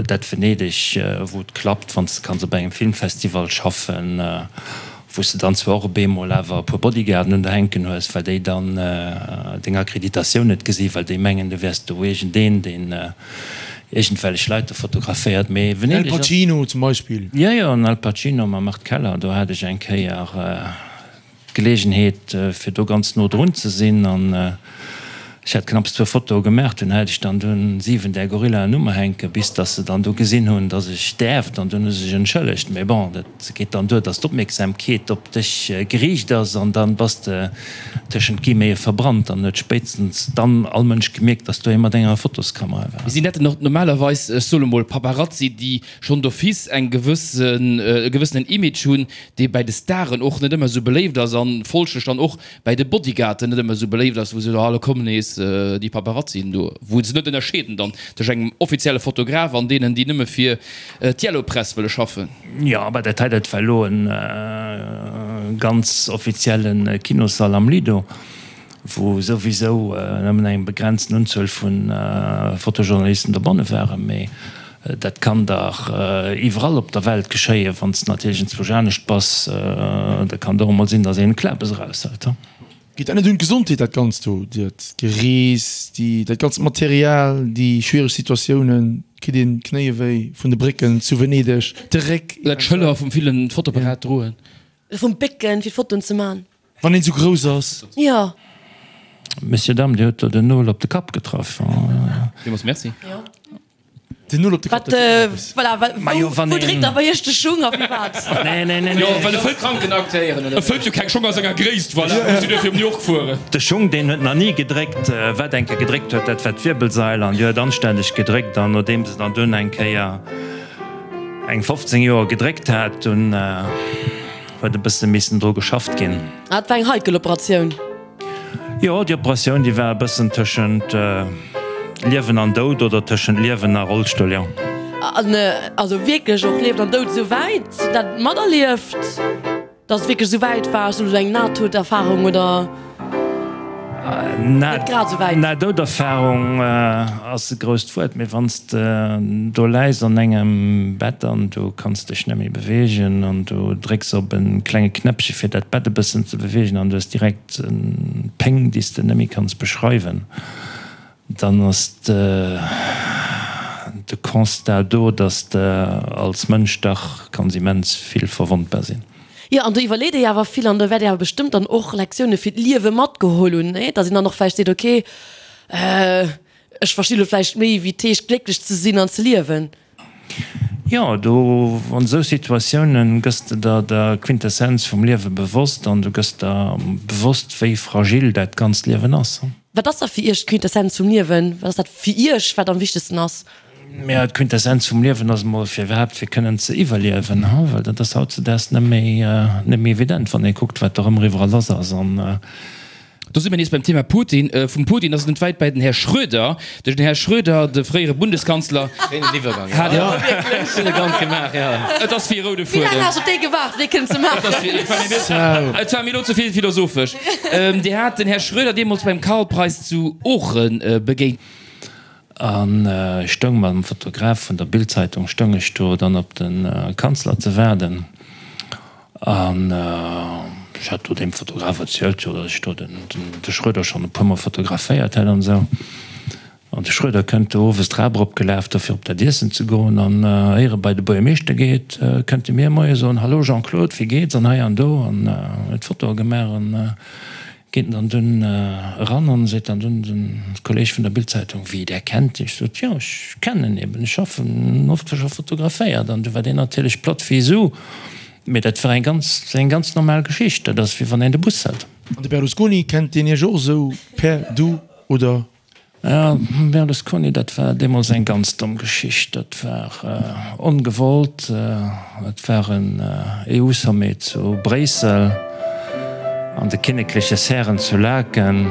dat Venedeg wou et klappt, wann s de kanns op engem Filmfestival schaffen, wou s de dann zwar och op eemol awer e puer Bodyguarden un der hänken hues, well déi dann deng Akkreditatioun net gesi well déi mengen du wäers do iergendeen deen iergendwellech Leit do fotograféiert. Mee Al Venedeg ass. Pacino zum Beispill. Jo, jo, den Al Pacino mam Art Keller, do hat ech eng Kéier d'Geleegenheet, fir do ganz no drun ze sinn an ech hat knapps zwou Fotoe gemaach, dunn hat ech dann dunn 7 där Gorillaen u mer hänken, bis dass se dann du gesinn hunn, dass ech däerft an dunn hu se sech entschëllegt. Mee bon, dat geet dann duer, dass d'Opmierksamkeet op dech geriicht ass an dann bass de tëschent Guillemete verbrannt an huet spéitstens dann all Mënsch gemierkt, dass do ee mat enger Fotoskamera war. Mee sinn dat dann och normalerweis, ech soe lo mol, Paparazzi, déi schonn d'office eng gewëssen, e gewëssenen Image hunn, dee bäi de Staren och net ëmmer esou beléift ass an folglech dann och bäi de Bodyguarden net ëmmer esou beléift ass, wou se soen, ah, lo kommen nees déi Paparazzien do, wou se net ënnerscheeden dann tëscht engem offizielle Fotograf an deenen, déi nëmme fir d'Yellow Press wëlle schaffen. Jo, aber dat hei, dat war elo e ganz offizielle Kinossall am Lido, wou souwisou nëmmen eng begrenzten Unzuel vu Fotojournalisten dobanne waren. Mee dat kann dach iwwerall op der Welt geschéien. Wann s de natierlech enzwousch anescht bass, da kann et och emol sinn, datt een e Klabes eraushëlt. Geet dat net un d'Gesondheet, dat Ganzt do, dat Gerees, déi, dat ganzt Material, déi schwiereg Situatiounen? Kritt een d'Knéie wéi vun de Brécken zu Venedeg, de Réck? Oder d'Schëller vum villen Fotoapparat droen? Oder vum Bécken, fir Fotoen ze man. Wann een esou grouss ass. Jo. Messieurs, Dames, Dir hutt do den Nol op de Kapp getraff. Villmools Merci. Den Nol op de Kapp, dat ass eppes. Voilà, wou dréckt da bei iech de Schung a firwat? Nee, nee, nee. Jo, well e fëllt Kranken aktéieren, oder? E fëllt jo keng Schong a senger Gréisst, voilà, muss jo duerfir op New York fueren. De Schung, deen huet nach ni gedréckt. Wat eng Kéier gedréckt huet, dat war d'Wirbelsail an déi huet anstänneg gedréckt. An nodeem se dann dunn eng Kéier eng 15 Joer gedréckt hat, dunn huet e bësse missen dru geschafft ginn. Ah, dat war eng heikel Operatioun. Jo, déi Operatioun, déi war e bëssen tëschent. tëschent Liewen an Doud oder tëschent Liewen a Rollstull, jo. An also wierklech och Liewen an Doud esou wäit dat materlieft? Dass et wierklech esou wäit war, esou eng Nahtoderfahrung oder net grad esou wäit? Nahtoderfahrung ass e grousst Wuert, mee wann s de do läis an engem Bett an du kanns dech net méi beweegen an du drécks op e klenge Knäppche fir dat Bett e bëssen ze beweegen an du hues direkt Péng déi s de net méi kanns beschreiwen, Dann ass de Constat do, dass de als Mënsch dach kanns immens vill verwondbar sinn. Jo, an do iwwerleet ee jo awer vill an do wäert ee awer bestëmmt dann och Lektioune fir d'Liewe matgeholl hunn, nee? Dass een dann och vläicht seet, okay, ech versti lo vläicht méi, wéi et heescht, glécklech ze sinn an ze liewen. Jo, do an esou Situatiounen gëss de der der Quintessenz vum Liewe bewosst an du gëss der bewosst, wéi fragil dat ganzt Liewen ass. Wat ass da fir Iech d'Quintessenz vum Liewen? Wat ass dat fir Iech, wat am wichtegsten ass? Maja, d'Quintessenz vum Liewen ass emol fir iwwerhaapt fir kënnen ze iwwerliewen, well dat ass hautzedaags net méi net méi evident, wann ee kuckt, wat do erëm iwwerall lass ass an. Do si mir nees beim Thema Putin. Vum Putin ass et net wäit bäi den Här Schröder. Den Här Schröder, de fréiere Bundeskanzler, Schéinen Iwwergang, jo. Hat Elegant gemaach, jo. Et ass wéi e roude Fuedem. Wéi laang has op dee gewaart, fir dee kënnen ze maachen? Et war mir elo ze vill philosophesch. Dir hat den Här Schröder deemools beim Karlpreis zu Oochen begéint. An ech stoung mam Fotograf vun der Bild-Zeitung stoung ech do dann op de Kanzler ze waarden. An ech hat do deem Fotograf erzielt, jo, datt ech do den de Schröder schonn e puermol fotograféiert hätt an esou. An de Schröder kënnt do owes d'Trap eropgelaf, do fir op dat Iessen ze goen. An éier e bei de Buergermeeschter geet, kënnt e mir moie soen, Hallo Jean-Claude, wéi geet's? An hei an do. An huet Fotoe gemaach an geet en dann dunn eran an seet dann dunn den Kolleg vun der Bild-Zeitung, Wéi, där kennt dech? Sot, Jo, ech kennen en eben, ech schaffen oft, ech hu fotograféiert. An du war deen natierlech platt wéi Su. Mee dat war eng ganz, eng ganz normal Geschicht. Dat ass wéi wann een de Bus hält. An de Berlusconi, kennt deen Iech och esou per Du oder? Jo, Berlusconi, dat war deemools eng ganz domm Geschicht. Dat war ongewollt. Et war en EU-Sommet zu Bréissel an de kinnekleche Serren zu Laeken,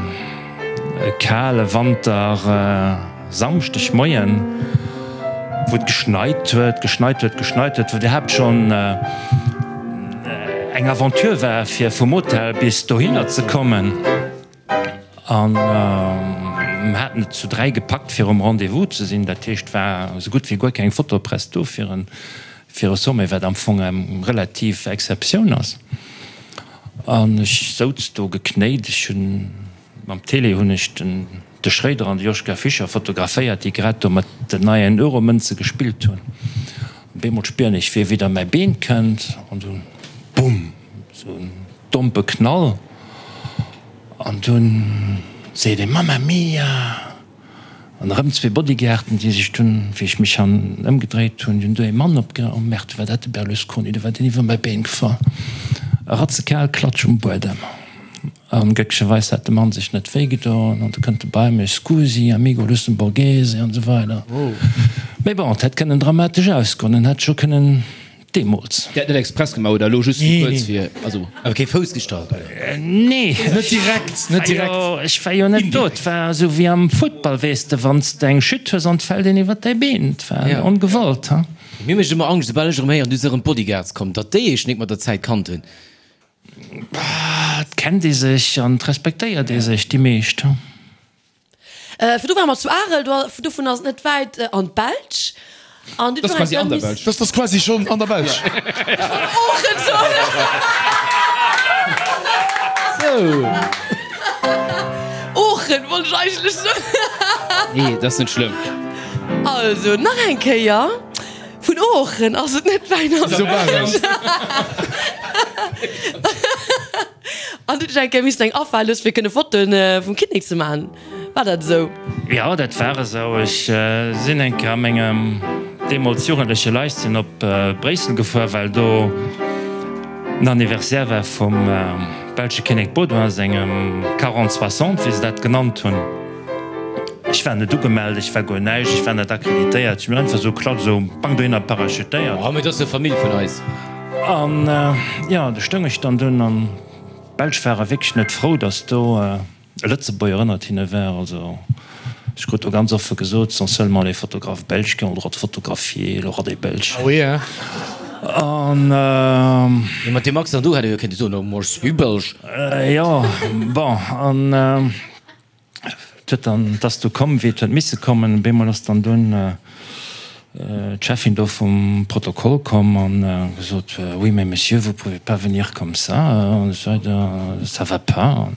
e kale Wanter Samschdeg Moien, wou et geschneit huet, geschneit huet, geschneit huet, wou et iwwerhaapt schonn eng Aventure war, fir vum Hotel bis dohinner ze kommen. An mer haten et zu 3 gepackt fir um Rendez-vous ze sinn. Dat heescht, et war esou gutt wéi guer keng Fotopress do fir e fir e Sommet, wat am Fong eng relativ Exceptioun ass. An ech souz do geknéit. Ech hunn mam Tele hunn ech den de Schréider an de Joschka Fischer fotograféiert, déi grad do mat den neien Euromënze gespillt hunn. Op eemol spieren ech, wéi e widder mäi Been kënnt an dunn, bumm, esou en dompe Knall. An dunn seet ee, Mamma mia! An erëm zwee Bodyguarden, déi sech dunn, wéi ech mech han ëmgedréit hunn, dunn do ee Mann opge, oh merde, war dat de Berlusconi, do war deen iwwer mäi Been gefall. E ratzekal Klatsch um Buedem. An glécklecherweis hat de Mann sech net wéi gedoen an du kënnt e bei mech, Scusi, amigo lussemburghese an esou weider. Mee bon, et hätt kënnen dramatesch ausgoen, en hätt scho kënnen Deemools. Dir hat net express gemaach oder elo just fir kuerz fir, also. Awer kee Fouss gestallt, oder? Nee. Net direkt, net direkt. Ech war jo net do. Et war esou wéi am Futtball, weess de, wann s de eng Chute hues an et fält een iwwer däi Been. Et war ongewollt, ha. Mir mécht ëmmer Angscht, soubal ech erëm héieren, du si erëm d'Bodyguards komm, datt déi eech nik mat der Zäit kannt hunn. Et kennt ee sech an et respektéiert ee sech, déi meescht, ha. Virdru ware mer zu Arel, dovun ass et net wäit an d'Belsch. An du quasi an der Belsch. Dat ass quasi schonn an der Belsch. Oochen soen. Sou. Oochen wollt ech eigentlech soen. Nee, dat ass net schlëmm. Also, nach eng Kéier, Vun Oochen ass et net wäit an d'Belsch. An du hutt eng Kéier missen eng afale loossen, fir kënne Fotoen vum Kinnek ze maachen. War dat esou? Jo, dat war esou. Ech sinn eng Kéier a mengem deemools jugendleche Leichtsinn op Bréissel gefuer, well do den Anniversaire war vum belsche Kinnek Baudouin sengem Quarante soixante, wéi se dat genannt hunn. Ech war net ugemellt, ech war guer näischt, ech war net akkreditéiert. Ech hunn einfach esou klatt esou bang dohinner parachutéiert. Oh, mee dat ass jo Famill vun eis. An jo, do stoung ech dann dunn an d'Belsch ware wierklech net frou, datt do e Lëtzebuerger ënnert hinne war. Also. Ech krut do ganz offe gesot, ce sont seulement les photographes belges qui ont le droit de photographier le roi des Belges. Ah oui, hein? An. Mee mat deem Accent do hätt ee jo kéinte soen, oh, moi je suis belge. Jo, bon, an et huet dann, et ass du komm, wéi et huet misse kommen. Op eemol ass dann dunn d'Cheffin do vum Protokoll komm an gesot, Oui, mais monsieur, vous pouvez pas venir comme ça, an esou weider, ça va pas.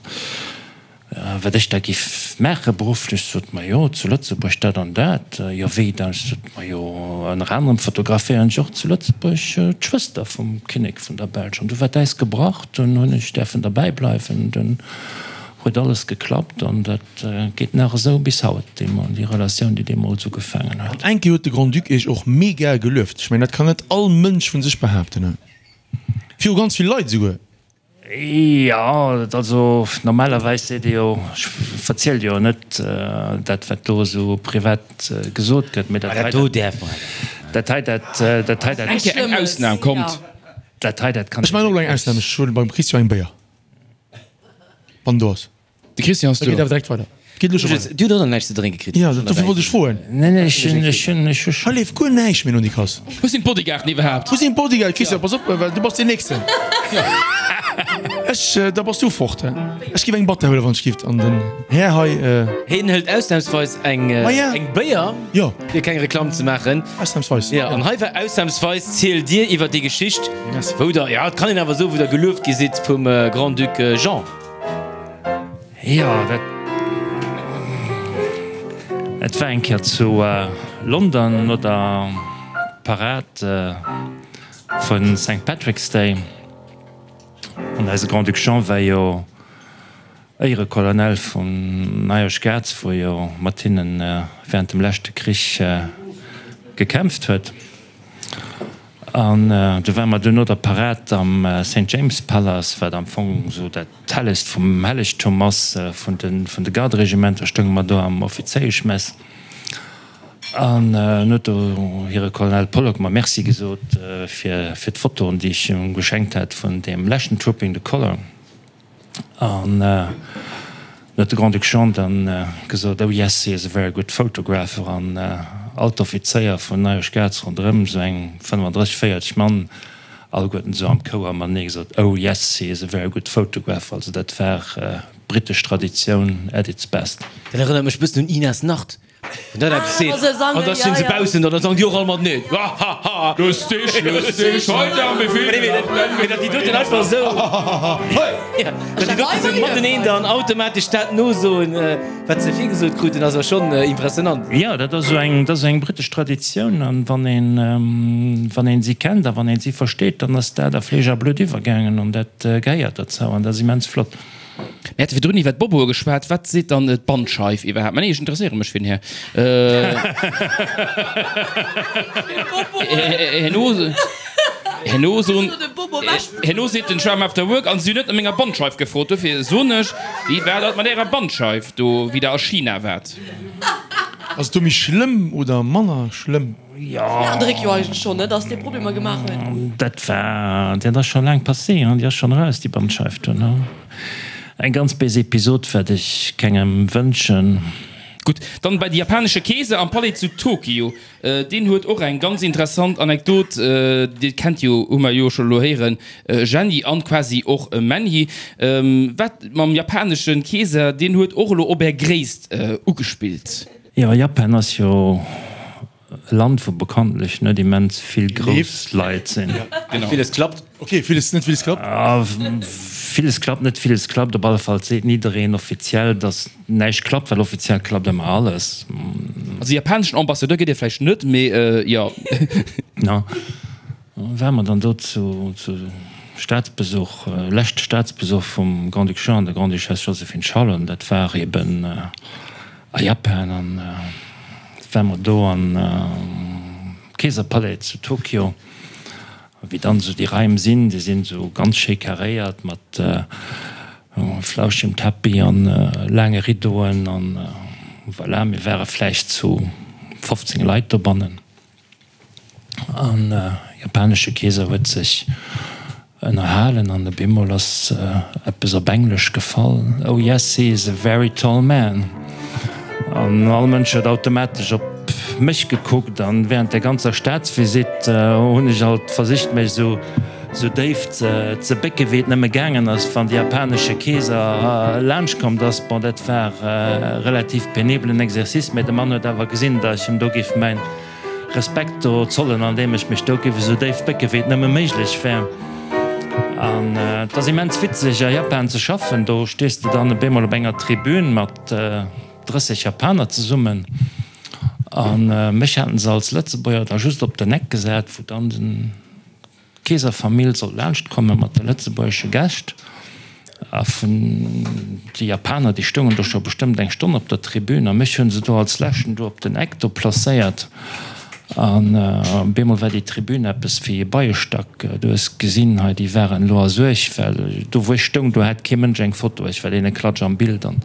Wat ech da giff maache berufflech, sot, Majo, zu Lëtzebuerg dat an dat. Jo, wéi da? Ech sot, Majo, ënner anerem fotograféieren ech och zu Lëtzebuerg d'Schwëster vum Kinnek vun der Belsch. An du war d'Äis gebrach, dunn hunn ech däerfen derbäi bleiwen. Dunn huet alles geklappt an dat geet nach esou bis haut, déi Relatioun, déi deemools ugefaangen huet. An eng Kéier huet de Grand-Duc Iech och mega gelueft. Ech mengen, dat kann net all Mënsch vun sech behaapten. Viru ganz vill Leit esouguer. Jo, also normalerweis seet ee jo, ech verzielt jo net dat wat do esou privat gesot gëtt, mee dat hei, dat hei, dat dat hei, dat. Eng Kéier eng Ausnam, kommt. Dat hei, dat kann. Ech maachen och elo eng Ausnam, ech huelen beim Christian eng Béier, wann en do ass. De Christian ass do. Da geet awer direkt weider. Geet elo scho weider. Du hutt och nach näischt ze drénke kritt. Jo, dofir wollt ech froen. Nee, nee, ech hunn, ech hunn, ech hu scho. Hei leeft guer näischt méi no Nicolas. Wou sinn d'Bodyguarden iwwerhaapt? Wou sinn d'Bodyguarden? Christian, pass op, well du bass deen Nächsten. Ech, da bass du fort. Ech giff eng Batter huelen, wann ech giff. An den Här hei. Hien hëlt ausnahmsweis eng, eng Béier, fir keng Reklamm ze maachen. Ausnahmsweis. Jo, an hei war ausnahmsweis zielt Dir iwwer déi Geschicht, wou Der, jo, et kann een awer soen, wou Der gelueft gi sidd vum Grand-Duc Jean. Jo, dat et war eng Kéier zu London no der Parad vu Saint Patrick's Day. An eise Grand-Duc Jean war jo Éierecolonel vum Irish Guards, wou jo mat hinne während dem leschte Krich gekämpft huet. An du ware mer duerno der Parad am Saint James Palace, wat am Fong esou dat Hellegst vum Hellegtum ass vun de Garderegimenter, stounge mer do am Offizéieschmess. An en huet do hire Colonel Pollock mer Merci gesot fir d'Fotoen, déi ech him geschenkt hat vun deem leschten Trooping the Colour. An dann huet de Grand-Duc Jean dann gesot, Oh yes, he is a very good photographer. An all d'Offizéier vun Irish Guards ronderëm, esou eng 35, 40 Mann, alleguerten esou am Chouer matenee gesot, Oh yes, he is a very good photographer. Also dat war britesch Traditioun at its best. Dat erënnert mech e bëssen un Inas Nacht. Wann dat eppes seet, an da stinn se baussen an da sangen déi och all mateneen, Hahaha! Lustig, lustig, heute haben wir viel gelacht, denn Mee datt déi doten einfach esou, ja, datt déi doten esou mateneen dann automatesch dat nosoen, wat se virgesot kruten, ass awer schonn impressionant. Jo, dat ass esou eng, dat ass eng britesch Traditioun an wann een, wann een si kennt a wann een si versteet, dann ass dat a Fleesch a Blutt iwwergaangen an dat gehéiert derzou an dat ass immens flott. Mir hate virdrun iwwer d'Boboe geschwat. Wat seet dann d'Bandscheif iwwerhaapt? Mä nee, ech interesséiere mech fir den Här. Herno, herno soen, herno seet den Schwamm after work, an si hunn net no menger Bandscheif gefrot. Dofir soen ech, wéi war dat mat ärer Bandscheif do, wéi der a China waart? Ass et do méi schlëmm oder manner schlëmm? Jo. An de Réck jo eigentlech schonn, ne, dass dee Problemer gemaach huet. Dat war, dat ass scho laang passé, hein, déi ass schonn eraus, déi Bandscheif do, ne. Eng ganz béis Episod, wat ech kengem wënschen. Gutt, dann bei de japanesche Keeser am Palais zu Tokio. Deen huet och eng ganz interessant Anekdot, Dir kennt jo, hu mer jo scho elo héieren, Jenny an quasi och Menhi. Wat mam japanesche Keeser, deen huet och elo op är Gréisst ugespillt. Jo, Japan ass jo e Land, wou bekanntlech net immens vill grouss Leit sinn. Genau. Villes klappt. Ok, villes, net villes klappt. Villes klappt, net villes klappt. Op alle Fall seet niddereen offiziell, datt näischt klappt, well offiziell klappt ëmmer alles. Also japaneschen Ambassadeur gëtt ee vläicht net, mee jo. No, ware mer dann do zu Staatsbesuch, leschte Staatsbesuch vum Grand-Duc Jean an der Grande-Duchesse Joséphine Charlotte, dat war eben a Japan an war mer do an Keeserpalais zu Tokio, wéi dann esou déi Raim sinn, déi sinn esou ganz schéi karéiert mat flauschegem Tapis an laange Rideauen an voilà, mir ware vläicht zu 15 Leit dobannen. An japanesche Keeser huet sech ënnerhalen an op eemol ass eppes op Englesch gefall, Oh yes, he is a very tall man. An all Mënsch huet automatesch op mech gekuckt an während der ganzer Staatsvisitt hunn ech alt versicht mech esou esou déif ze bécke wéi et nëmme gaangen ass, wann de japanesche Keeser laanscht kommt ass. Bon, dat war e relativ penibelen Exercice, mä de Mann huet awer gesinn, datt ech him do géif mäin Respekt do zollen, andeem ech mech do géif esou déif bécke wéi et nëmme méiglech wär. An et ass immens witzeg a Japan ze schaffen, do stees de dann op eemol op enger Tribün mat 30 Japaner zesummen a mech haten se als Lëtzebuerger da just op den Eck gesat, wou dann den d'Keeserfamill sollt laanscht komme mat de lëtzebuergesche Gäscht. A vun déi Japaner, déi stoungen do scho bestëmmt eng Stonn op der Tribün a mech hunn se do als leschten do op den Eck do placéiert. An op eemol war déi Tribün eppes wéi e Beiestack. Du hues gesinn, hei déi waren elo a Suerg, well do wou ech stoung, do hat kee Mënsch eng Foto. Ech war deene Klatsch am Bild an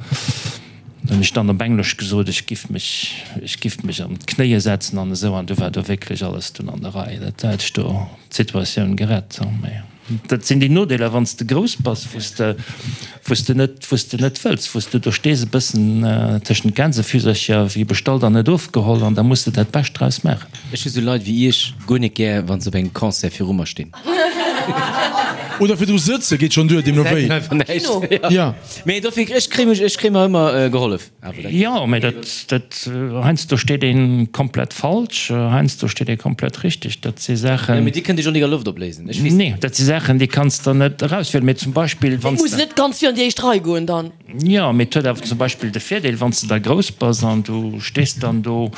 hunn ech dann op Englesch gesot, ech giff mech, ech giff mech an d'Knéie setzen an esou. An du war do wierklech alles dunn an der Rei. Dat hat ech do d'Situatioun gerett. Mä Dat sinn déi Nodeeler, wann s de grouss bass, wou s de, wou s de net, wou s de net wëlls, wou s de do stees e bëssen tëschent Gänsefüsercher, wéi bestallt an net ofgeholl, an da muss de dat Bescht draus maachen. Ech hu sou Leit wéi iech guer net gär, wann se op engem Concert viru mer stinn. Oder virdru sëtze geet schonn duer, deemno wéi. Kino. Ja. Mee dofir, ech kréie mech, ech kréie mer ëmmer gehollef. Jo, mee dat, dat, heiansdo steet ee komplett falsch, heiansdo steet ee komplett richteg. Dat si Saachen. Jo, mee Dir kënnt Iech och nik a Loft opléisen. Ech weess. Nee, dat si Saachen, déi kanns de net erauswielen. Mee zum Beispill, wann s de. Muss net ganz vir an déi éischt Rei goen dann. Jo, mee et huet awer zum Beispill de Virdeel, wann s de da grouss bass an du stees dann do,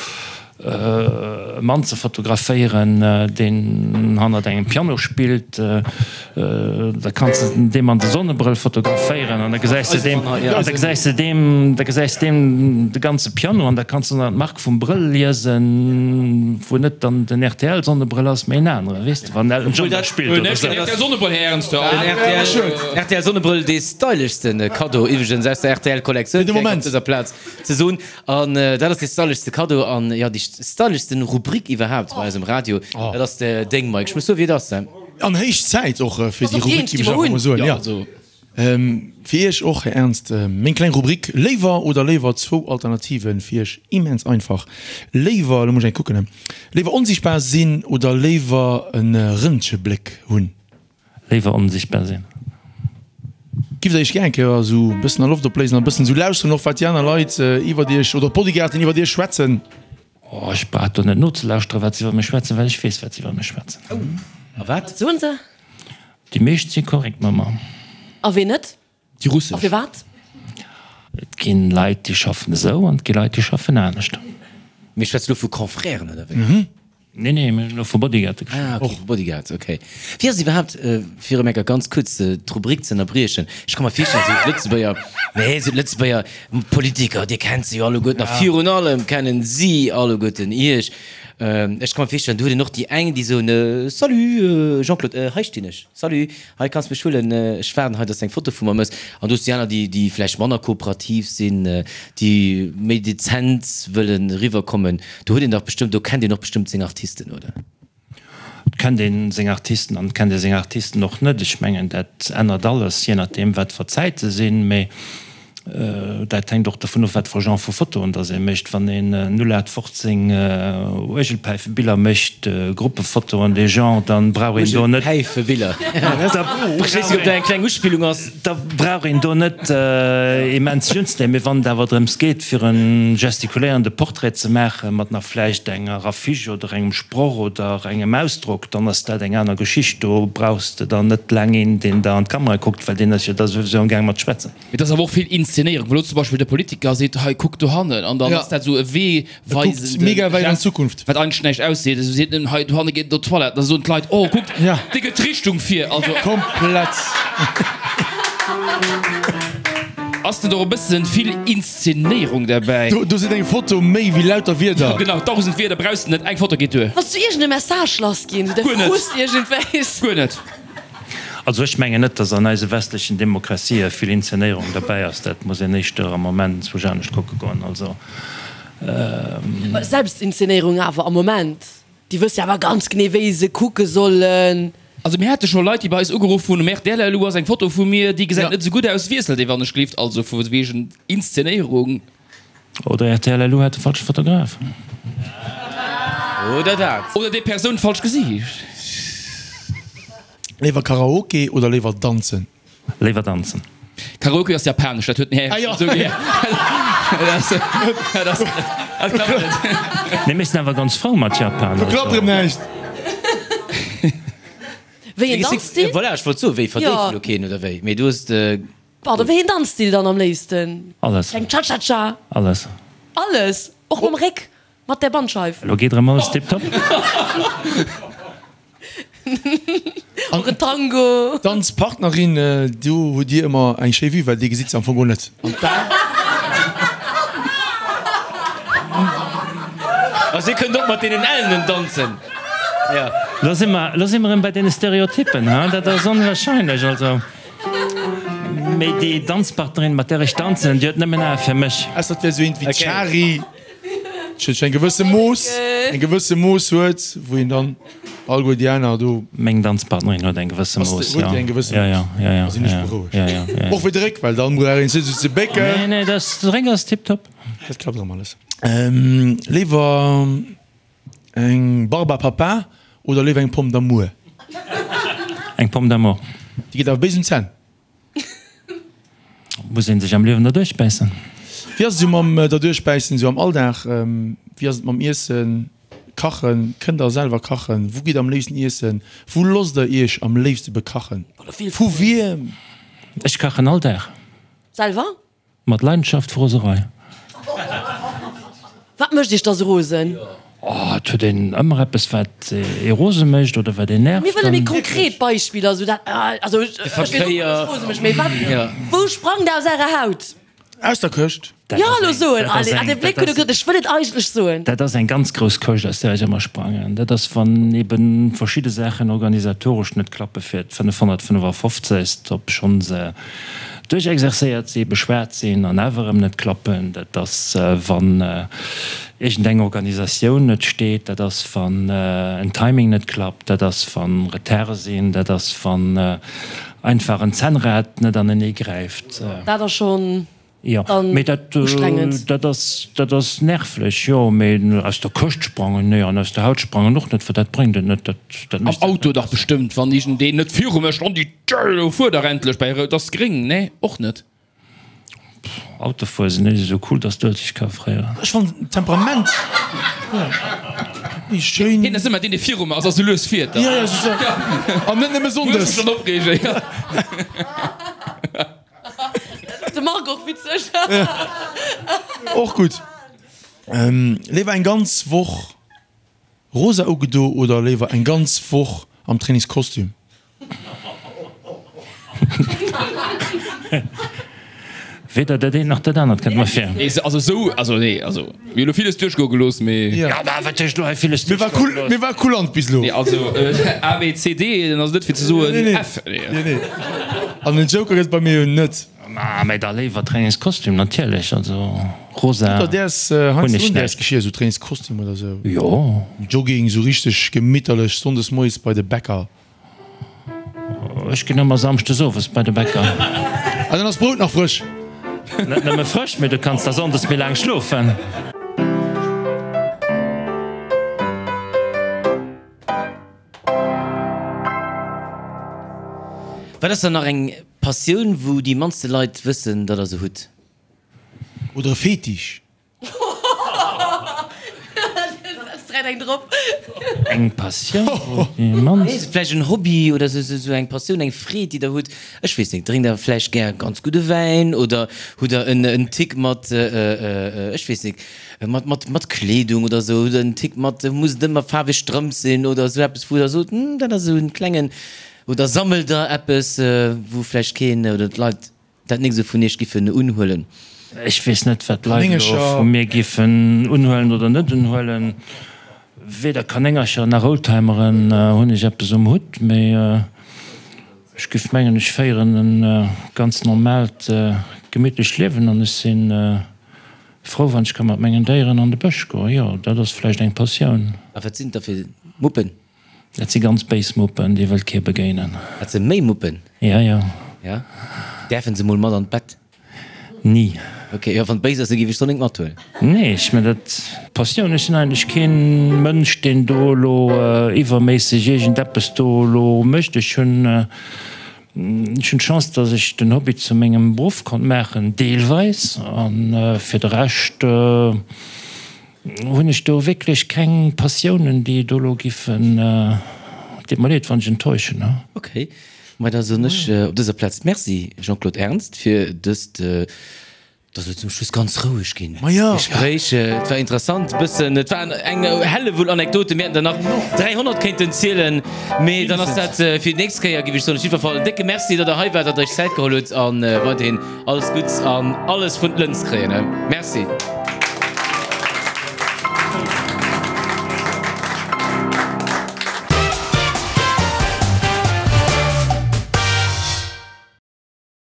e Mann ze fotograféieren, deen hannert engem Piano spillt, da kanns de deem an de Sonnebrëll fotograféieren an da gesäis de deem, an da gesäis de deem, da gesäis de deem de ganze Piano an da kanns de nach d'Mark vum Brëll liesen, wou net dann den RTL-Sonnebrëll ass, mee en anere, weess de, wann Elton John da spillt oder sou. RTL-Sonnebrëll, Här Ernster. Den RTL-Sonnebrëll, dee styleschste Kaddo iwwregens aus der RTL-Kollektioun, fir eng op dëser Plaz ze soen. An dat ass dee styleschste Kaddo an jo déi styleschsten Rubrik iwwerhaapt bei eisem Radio. Dat ass deng, Mike. Ech muss soen, wéi et ass, he? An héich Zäit och fir déi Rubrik, géif ech einfach mol soen. Jo, fir Iech och, Här Ernst, meng kleng Rubrik Léiwer oder léiwer, zwou Alternativen fir Iech, immens einfach. Léiwer, elo muss ech eng kucken, léiwer onsiichtbar sinn oder léiwer e Rëntgebléck hunn? Léiwer onsichtbar sinn. Giff der iech gär eng Kéier esou e bëssen a Loft opléisen an e bëssen esou lauschteren och wat déi aner Leit iwwert iech oder d'Bodyguarden iwwert iech schwätzen? Oh, ech brauch do net nozelauschteren wat se iwwer mech schwätzen, well ech weess wat se iwwer mech schwätzen. A wat Wat soen se? Déi meescht si korrekt mat mer. A ween net? Déi russesch. A firwat? Et gi Leit déi schaffen esou an et gi Leit déi schaffen anescht. Mir schwätze lo vu Confrèren oder wéi? Nee, nee, mir hunn elo vu Bodyguarde geschwat. Ah, okay, vu Bodyguards, okay. Wéi ass et iwwerhaapt, fir erëm eng Kéier ganz kuerz d'Rubrik ze ënnerbriechen, ech ka mer virstellen, esou d'Lëtzebuerger, nee, esou d'Lëtzebuerger Politiker, Dir kennt se jo alleguerten a virun allem kennen si alleguerten Iech. Ech ka mer virstellen, do huet een och déi eng, déi soen, Salut Jean-Claude, hei stinn ech, salut, hei kanns mech huelen, ech waarden hei, dass de eng Foto vu mer méchs. An do hues de déi aner, déi, déi vläicht manner kooperativ sinn, déi méi dezent wëllen eriwwerkommen. Do huet een dach bestëmmt, do kennt een och bestëmmt seng Artisten, oder? Et kennt ee seng Artisten an et kennt ee seng Artisten och net. Ech mengen, dat ännert alles, jee nodeem wat fir Zäite sinn. Mee dat hänkt och dovun of, wat fir e Genre vu Fotoen dass ee mécht. Wann een 0815 Uergelpäifebiller mécht, Gruppefotoen, dee Genre, dann brauch een do net. Uergelpäifebiller, ech weess net, ob dat eng kleng Uspillung ass. Da brauch een do net immens unzenehmen. Mee wann et awer drëms geet, fir e gestikuléierende Portrait ze maachen, mat nach vläicht enger Affiche oder engem Sproch oder engem Ausdrock, dann ass dat eng aner Geschicht. Do brauchs de dann net laang een, deen der an d'Kamera kuckt, well deen ass jo da souwisou am gaang mat schwätzen. Mee et ass awer och vill Inszenéierung, wou elo zum Beispill de Politiker seet, hei kuck dohannen, an dann ass dat esou e Wee weisende mega wäit an d'Zukunft. Wat eigentlech näischt ausseet. Esou seet en, hei dohanne geet et op d'Toilette, da soen d'Leit, oh kuckt, dee gëtt d'Richtung vir. Also. Komplett. Ass net och e bëssen vill Inszenéierung derbäi? Do seet eng Foto méi wéi lauter Wierder. Jo genau, 1000 Wierder brauchs de net, eng Foto geet duer. Wanns du iergend e Message lass ginn, sou de Guer net. Frust iergendwéis. Guer net. Also ech mengen net, datt an eise westlechen Demokratië vill Inzenéierung derbäi ass. Dat muss een éischter am Moment zwousch anescht kucke goen. Also. Selbstinzenéierung awer am Moment. Déi wësse jo awer ganz genee wéi se kucke sollen. Also mir hate scho Leit déi bei eis ugeruff hunn, um rtl, elo ass eng Foto vu mir, déi gesäit net esou gutt aus, wiesselt ee wann ech gleeft. Also vu wegen Inszenéierung. Oder rtl LU hat de falsche Fotograf. Oder dat. Oder déi Persoun falsch gesicht. Léiwer Karaoke oder léiwer danzen? Léiwer danzen. Karaoke ass japanesch, dat huet den Här esou gär. Dat klappt net. Mee mir sinn awer ganz frou mat Japan. Do klappt erëm näischt. Wéi een Danzstil? Voilà, ech wollt soen, wéi verdéift elo keen oder wéi? Mee du hues. Pardon, wéi een Danzstil dann am léifsten? Alles. Eng Cha-Cha-Cha? Alles. Alles? Och mam Réck? Mat der Bandscheif? Elo geet erëm alles tiptop. Och en Tango? Danzpartnerin, do hutt Dir ëmmer eng schéi Vue, well Dir gesitt se am Fong guer net. An d'Bar? Also Dir kënnt och mat deenen Ellenen danzen, jo. Lo si mer, lo si mer erëm bei deene Stereotyppen, ha? Dat ass onwahrscheinlech, also. Mee déi Danzpartnerin, mat där ech danzen, déi huet nëmmen Ae fir mech. Ausser et wär esou eent wéi d'Shari, déi eng gewësse Mooss, eng gewësse Mooss huet, wou een dann alleguer déi aner do. Meng Danzpartnerin huet eng gewësse Mooss, jo. Huet déi eng gewësse Mooss? Jo, jo, jo. Da sinn ech berouegt. Jo, jo, jo. Och fir de Réck, well dann brauch een sech esou ze bécken. Nee, nee, dat, de Réck ass tiptop. Dat klappt erëm alles. Léiwer. Eng Barbe à papa oder léiwer eng Pomme d'amour? Eng Pomme d'amour. Déi geet awer béis un d'Zänn. Muss een sech am Liewen derduerch bäissen. Wéi ass et esou mam derduerch bäissen esou am Alldag? Wéi ass et mam Iessen, Kachen? Kënnt der selwer kachen? Wou gitt der am léifsten iessen? Wou losst der iech am léifste bekachen? Vu wiem? Ech kachen all Dag. Selwer? Mat Leidenschaft Froserei. Wat mécht iech da sou rosen? Oh, et huet een ëmmer eppes wat ee rose mécht oder wat een nervt. Mir wëlle méi konkret Beispiller, sou dat, also ech weess och net, wat rose mécht, mee wat, wou sprangt aus ärer Haut? Aus der Këscht. Jo, elo soen, allez, ah, de Bléck huet e gesot, ech wëll et eigentlech soen. Dat ass eng ganz grouss Këscht, aus där ech ëmmer sprangen. Dat ass, wann ebe verschidde Saachen organisatoresch net klappe fir d'555. Obschonn se Duerchexerzéiert si, beschwat sinn an awer erëm net klappen. Dat ass, wann iergendeng Organisatioun net steet. Dat ass, wann en Timing net klappt. Dat ass, wa Retarde sinn. Dat ass, wann einfach en Zännrad net anenee gräift. Dat ass schonn Jo, dann mee dat, ustrengend. dat ass, dat ass nervlech, jo. Mee aus der Këscht sprangen, nee, an aus der Haut sprangen och net, well dat bréngt et net. Dat, dat Am mécht dat Auto net dach besser. bestëmmt, wann iergendeen net viru mech an déi Tür, elo fuer dach endlech bäi rout, ass gréng, nee, och net. Autofuere sinn net esou cool, dass d'Uelzecht ka fréieren. Ech fannen d'Temperament méi schéin. Hien ass ëmmer deen, dee viru mer ass a sou lues fiert. Jo, jo, c'est ça. An net nëmme Muss sonndes. mech schonn opreegen, jo. De Marc och witzeg. Och gutt. Léiwer eng ganz Woch rosa ugedo oder léiwer eng ganz Woch am Trainingskostüm? Weder dat eent nach dat anert kënnt mer vir. Nee, also sou, also nee, also mir hu lo villes duerchgoe gelooss, mee. Jo, mä wat heescht lo hei villes Mir war duerchgoe cool, gelooss? mir war kulant bis lo. Nee, also A, B, C, D, dann ass et net fir ze soen Nee, nee. F. Nee, nee. An den Joker gëtt et bei mir jo net. Ma mä da léiwer Trainingskostüm, natierlech. Also rosa Hutt der däers hunn heiansdo ech un däers net. Geschir, sou Trainingskostüm oder sou? Jo. Jogging, sou richteg gemitterlech sonndes moies bei de Bäcker. Ech ginn ëmmer samschdes owes bei de Bäcker. Ah, dann ass d'Brout nach frësch. Net nëmme frësch, mee du kanns da sonndes méi laang schlofen. Wat ass dann nach eng Passioun, wou déi mannste Leit wëssen, datt der se hutt? Oder e Fetisch? Eng Passioun, wou déi mannst. Vläicht en Hobby oder sou eng Passioun, eng Freed, déi der hutt. Ech weess net, drénkt der vläicht gär ganz gudde Wäin oder hutt der en Tick mat, ech weess net, mat Kleedung oder sou, hutt der en Tick mat, muss et ëmmer faarweg Strëmp sinn oder sou eppes, wou der sot, hm, dat ass esou en klengen, oder sammelt der eppes, wou vläicht keen oder d'Leit Dat nik esou vun iech giffen unhuelen. Ech weess net, wat d'Leit elo vu mir giffen unhuelen oder net unhuelen. Weder Kanéngercher nach Oldtimeren hunn ech eppes um Hutt, mee ech giff mengen, ech féieren e ganz normaalt, gemittlecht Liewen an ech si frou, wann ech ka mat mengen Déieren an de Bësch goen. Jo, dat ass vläicht eng Passioun. A wat sinn et da fir Muppen? Dat si ganz béis Muppen, déi wëllt kee begéinen. Dat se méi Muppen? Ja, ja. Ja? Däerfen se mol mat an d'Bett? Ni. Ok, jo, wann et béis ass, da géif ech d'Sonnéng mathuelen. Nee, ech mengen dat Passioun, ech sinn eigentlech keen Mënsch, deen do elo iwwerméisseg iergendeppes do elo mécht. Ech hunn, ech hunn d'Chance, datt ech den Hobby zu mengem Beruff konnt maachen, deelweis, a fir de Rescht hunn ech do wierklech keng Passiounen, déi do elo giffen, deet mer leed, wann ech enttäuschen. Ok, ma da soen ech op dëser Plaz Merci, Jean-Claude Ernst, fir dëst Et ass elo zum Schluss ganz roueg ginn. Gespréich, et war interessant, e bëssen, et waren eng Hellewull Anekdoten, mir hätten der nach 300 kéinten zielen, mee dann ass dat fir déi nächst Kéier, géif ech soen. Op jiddwer Fall en décke Merci, datt der hei waart, datt der iech Zäit geholl hutt a weiderhin alles Gutts an alles vun d'Lëns kréien. Merci.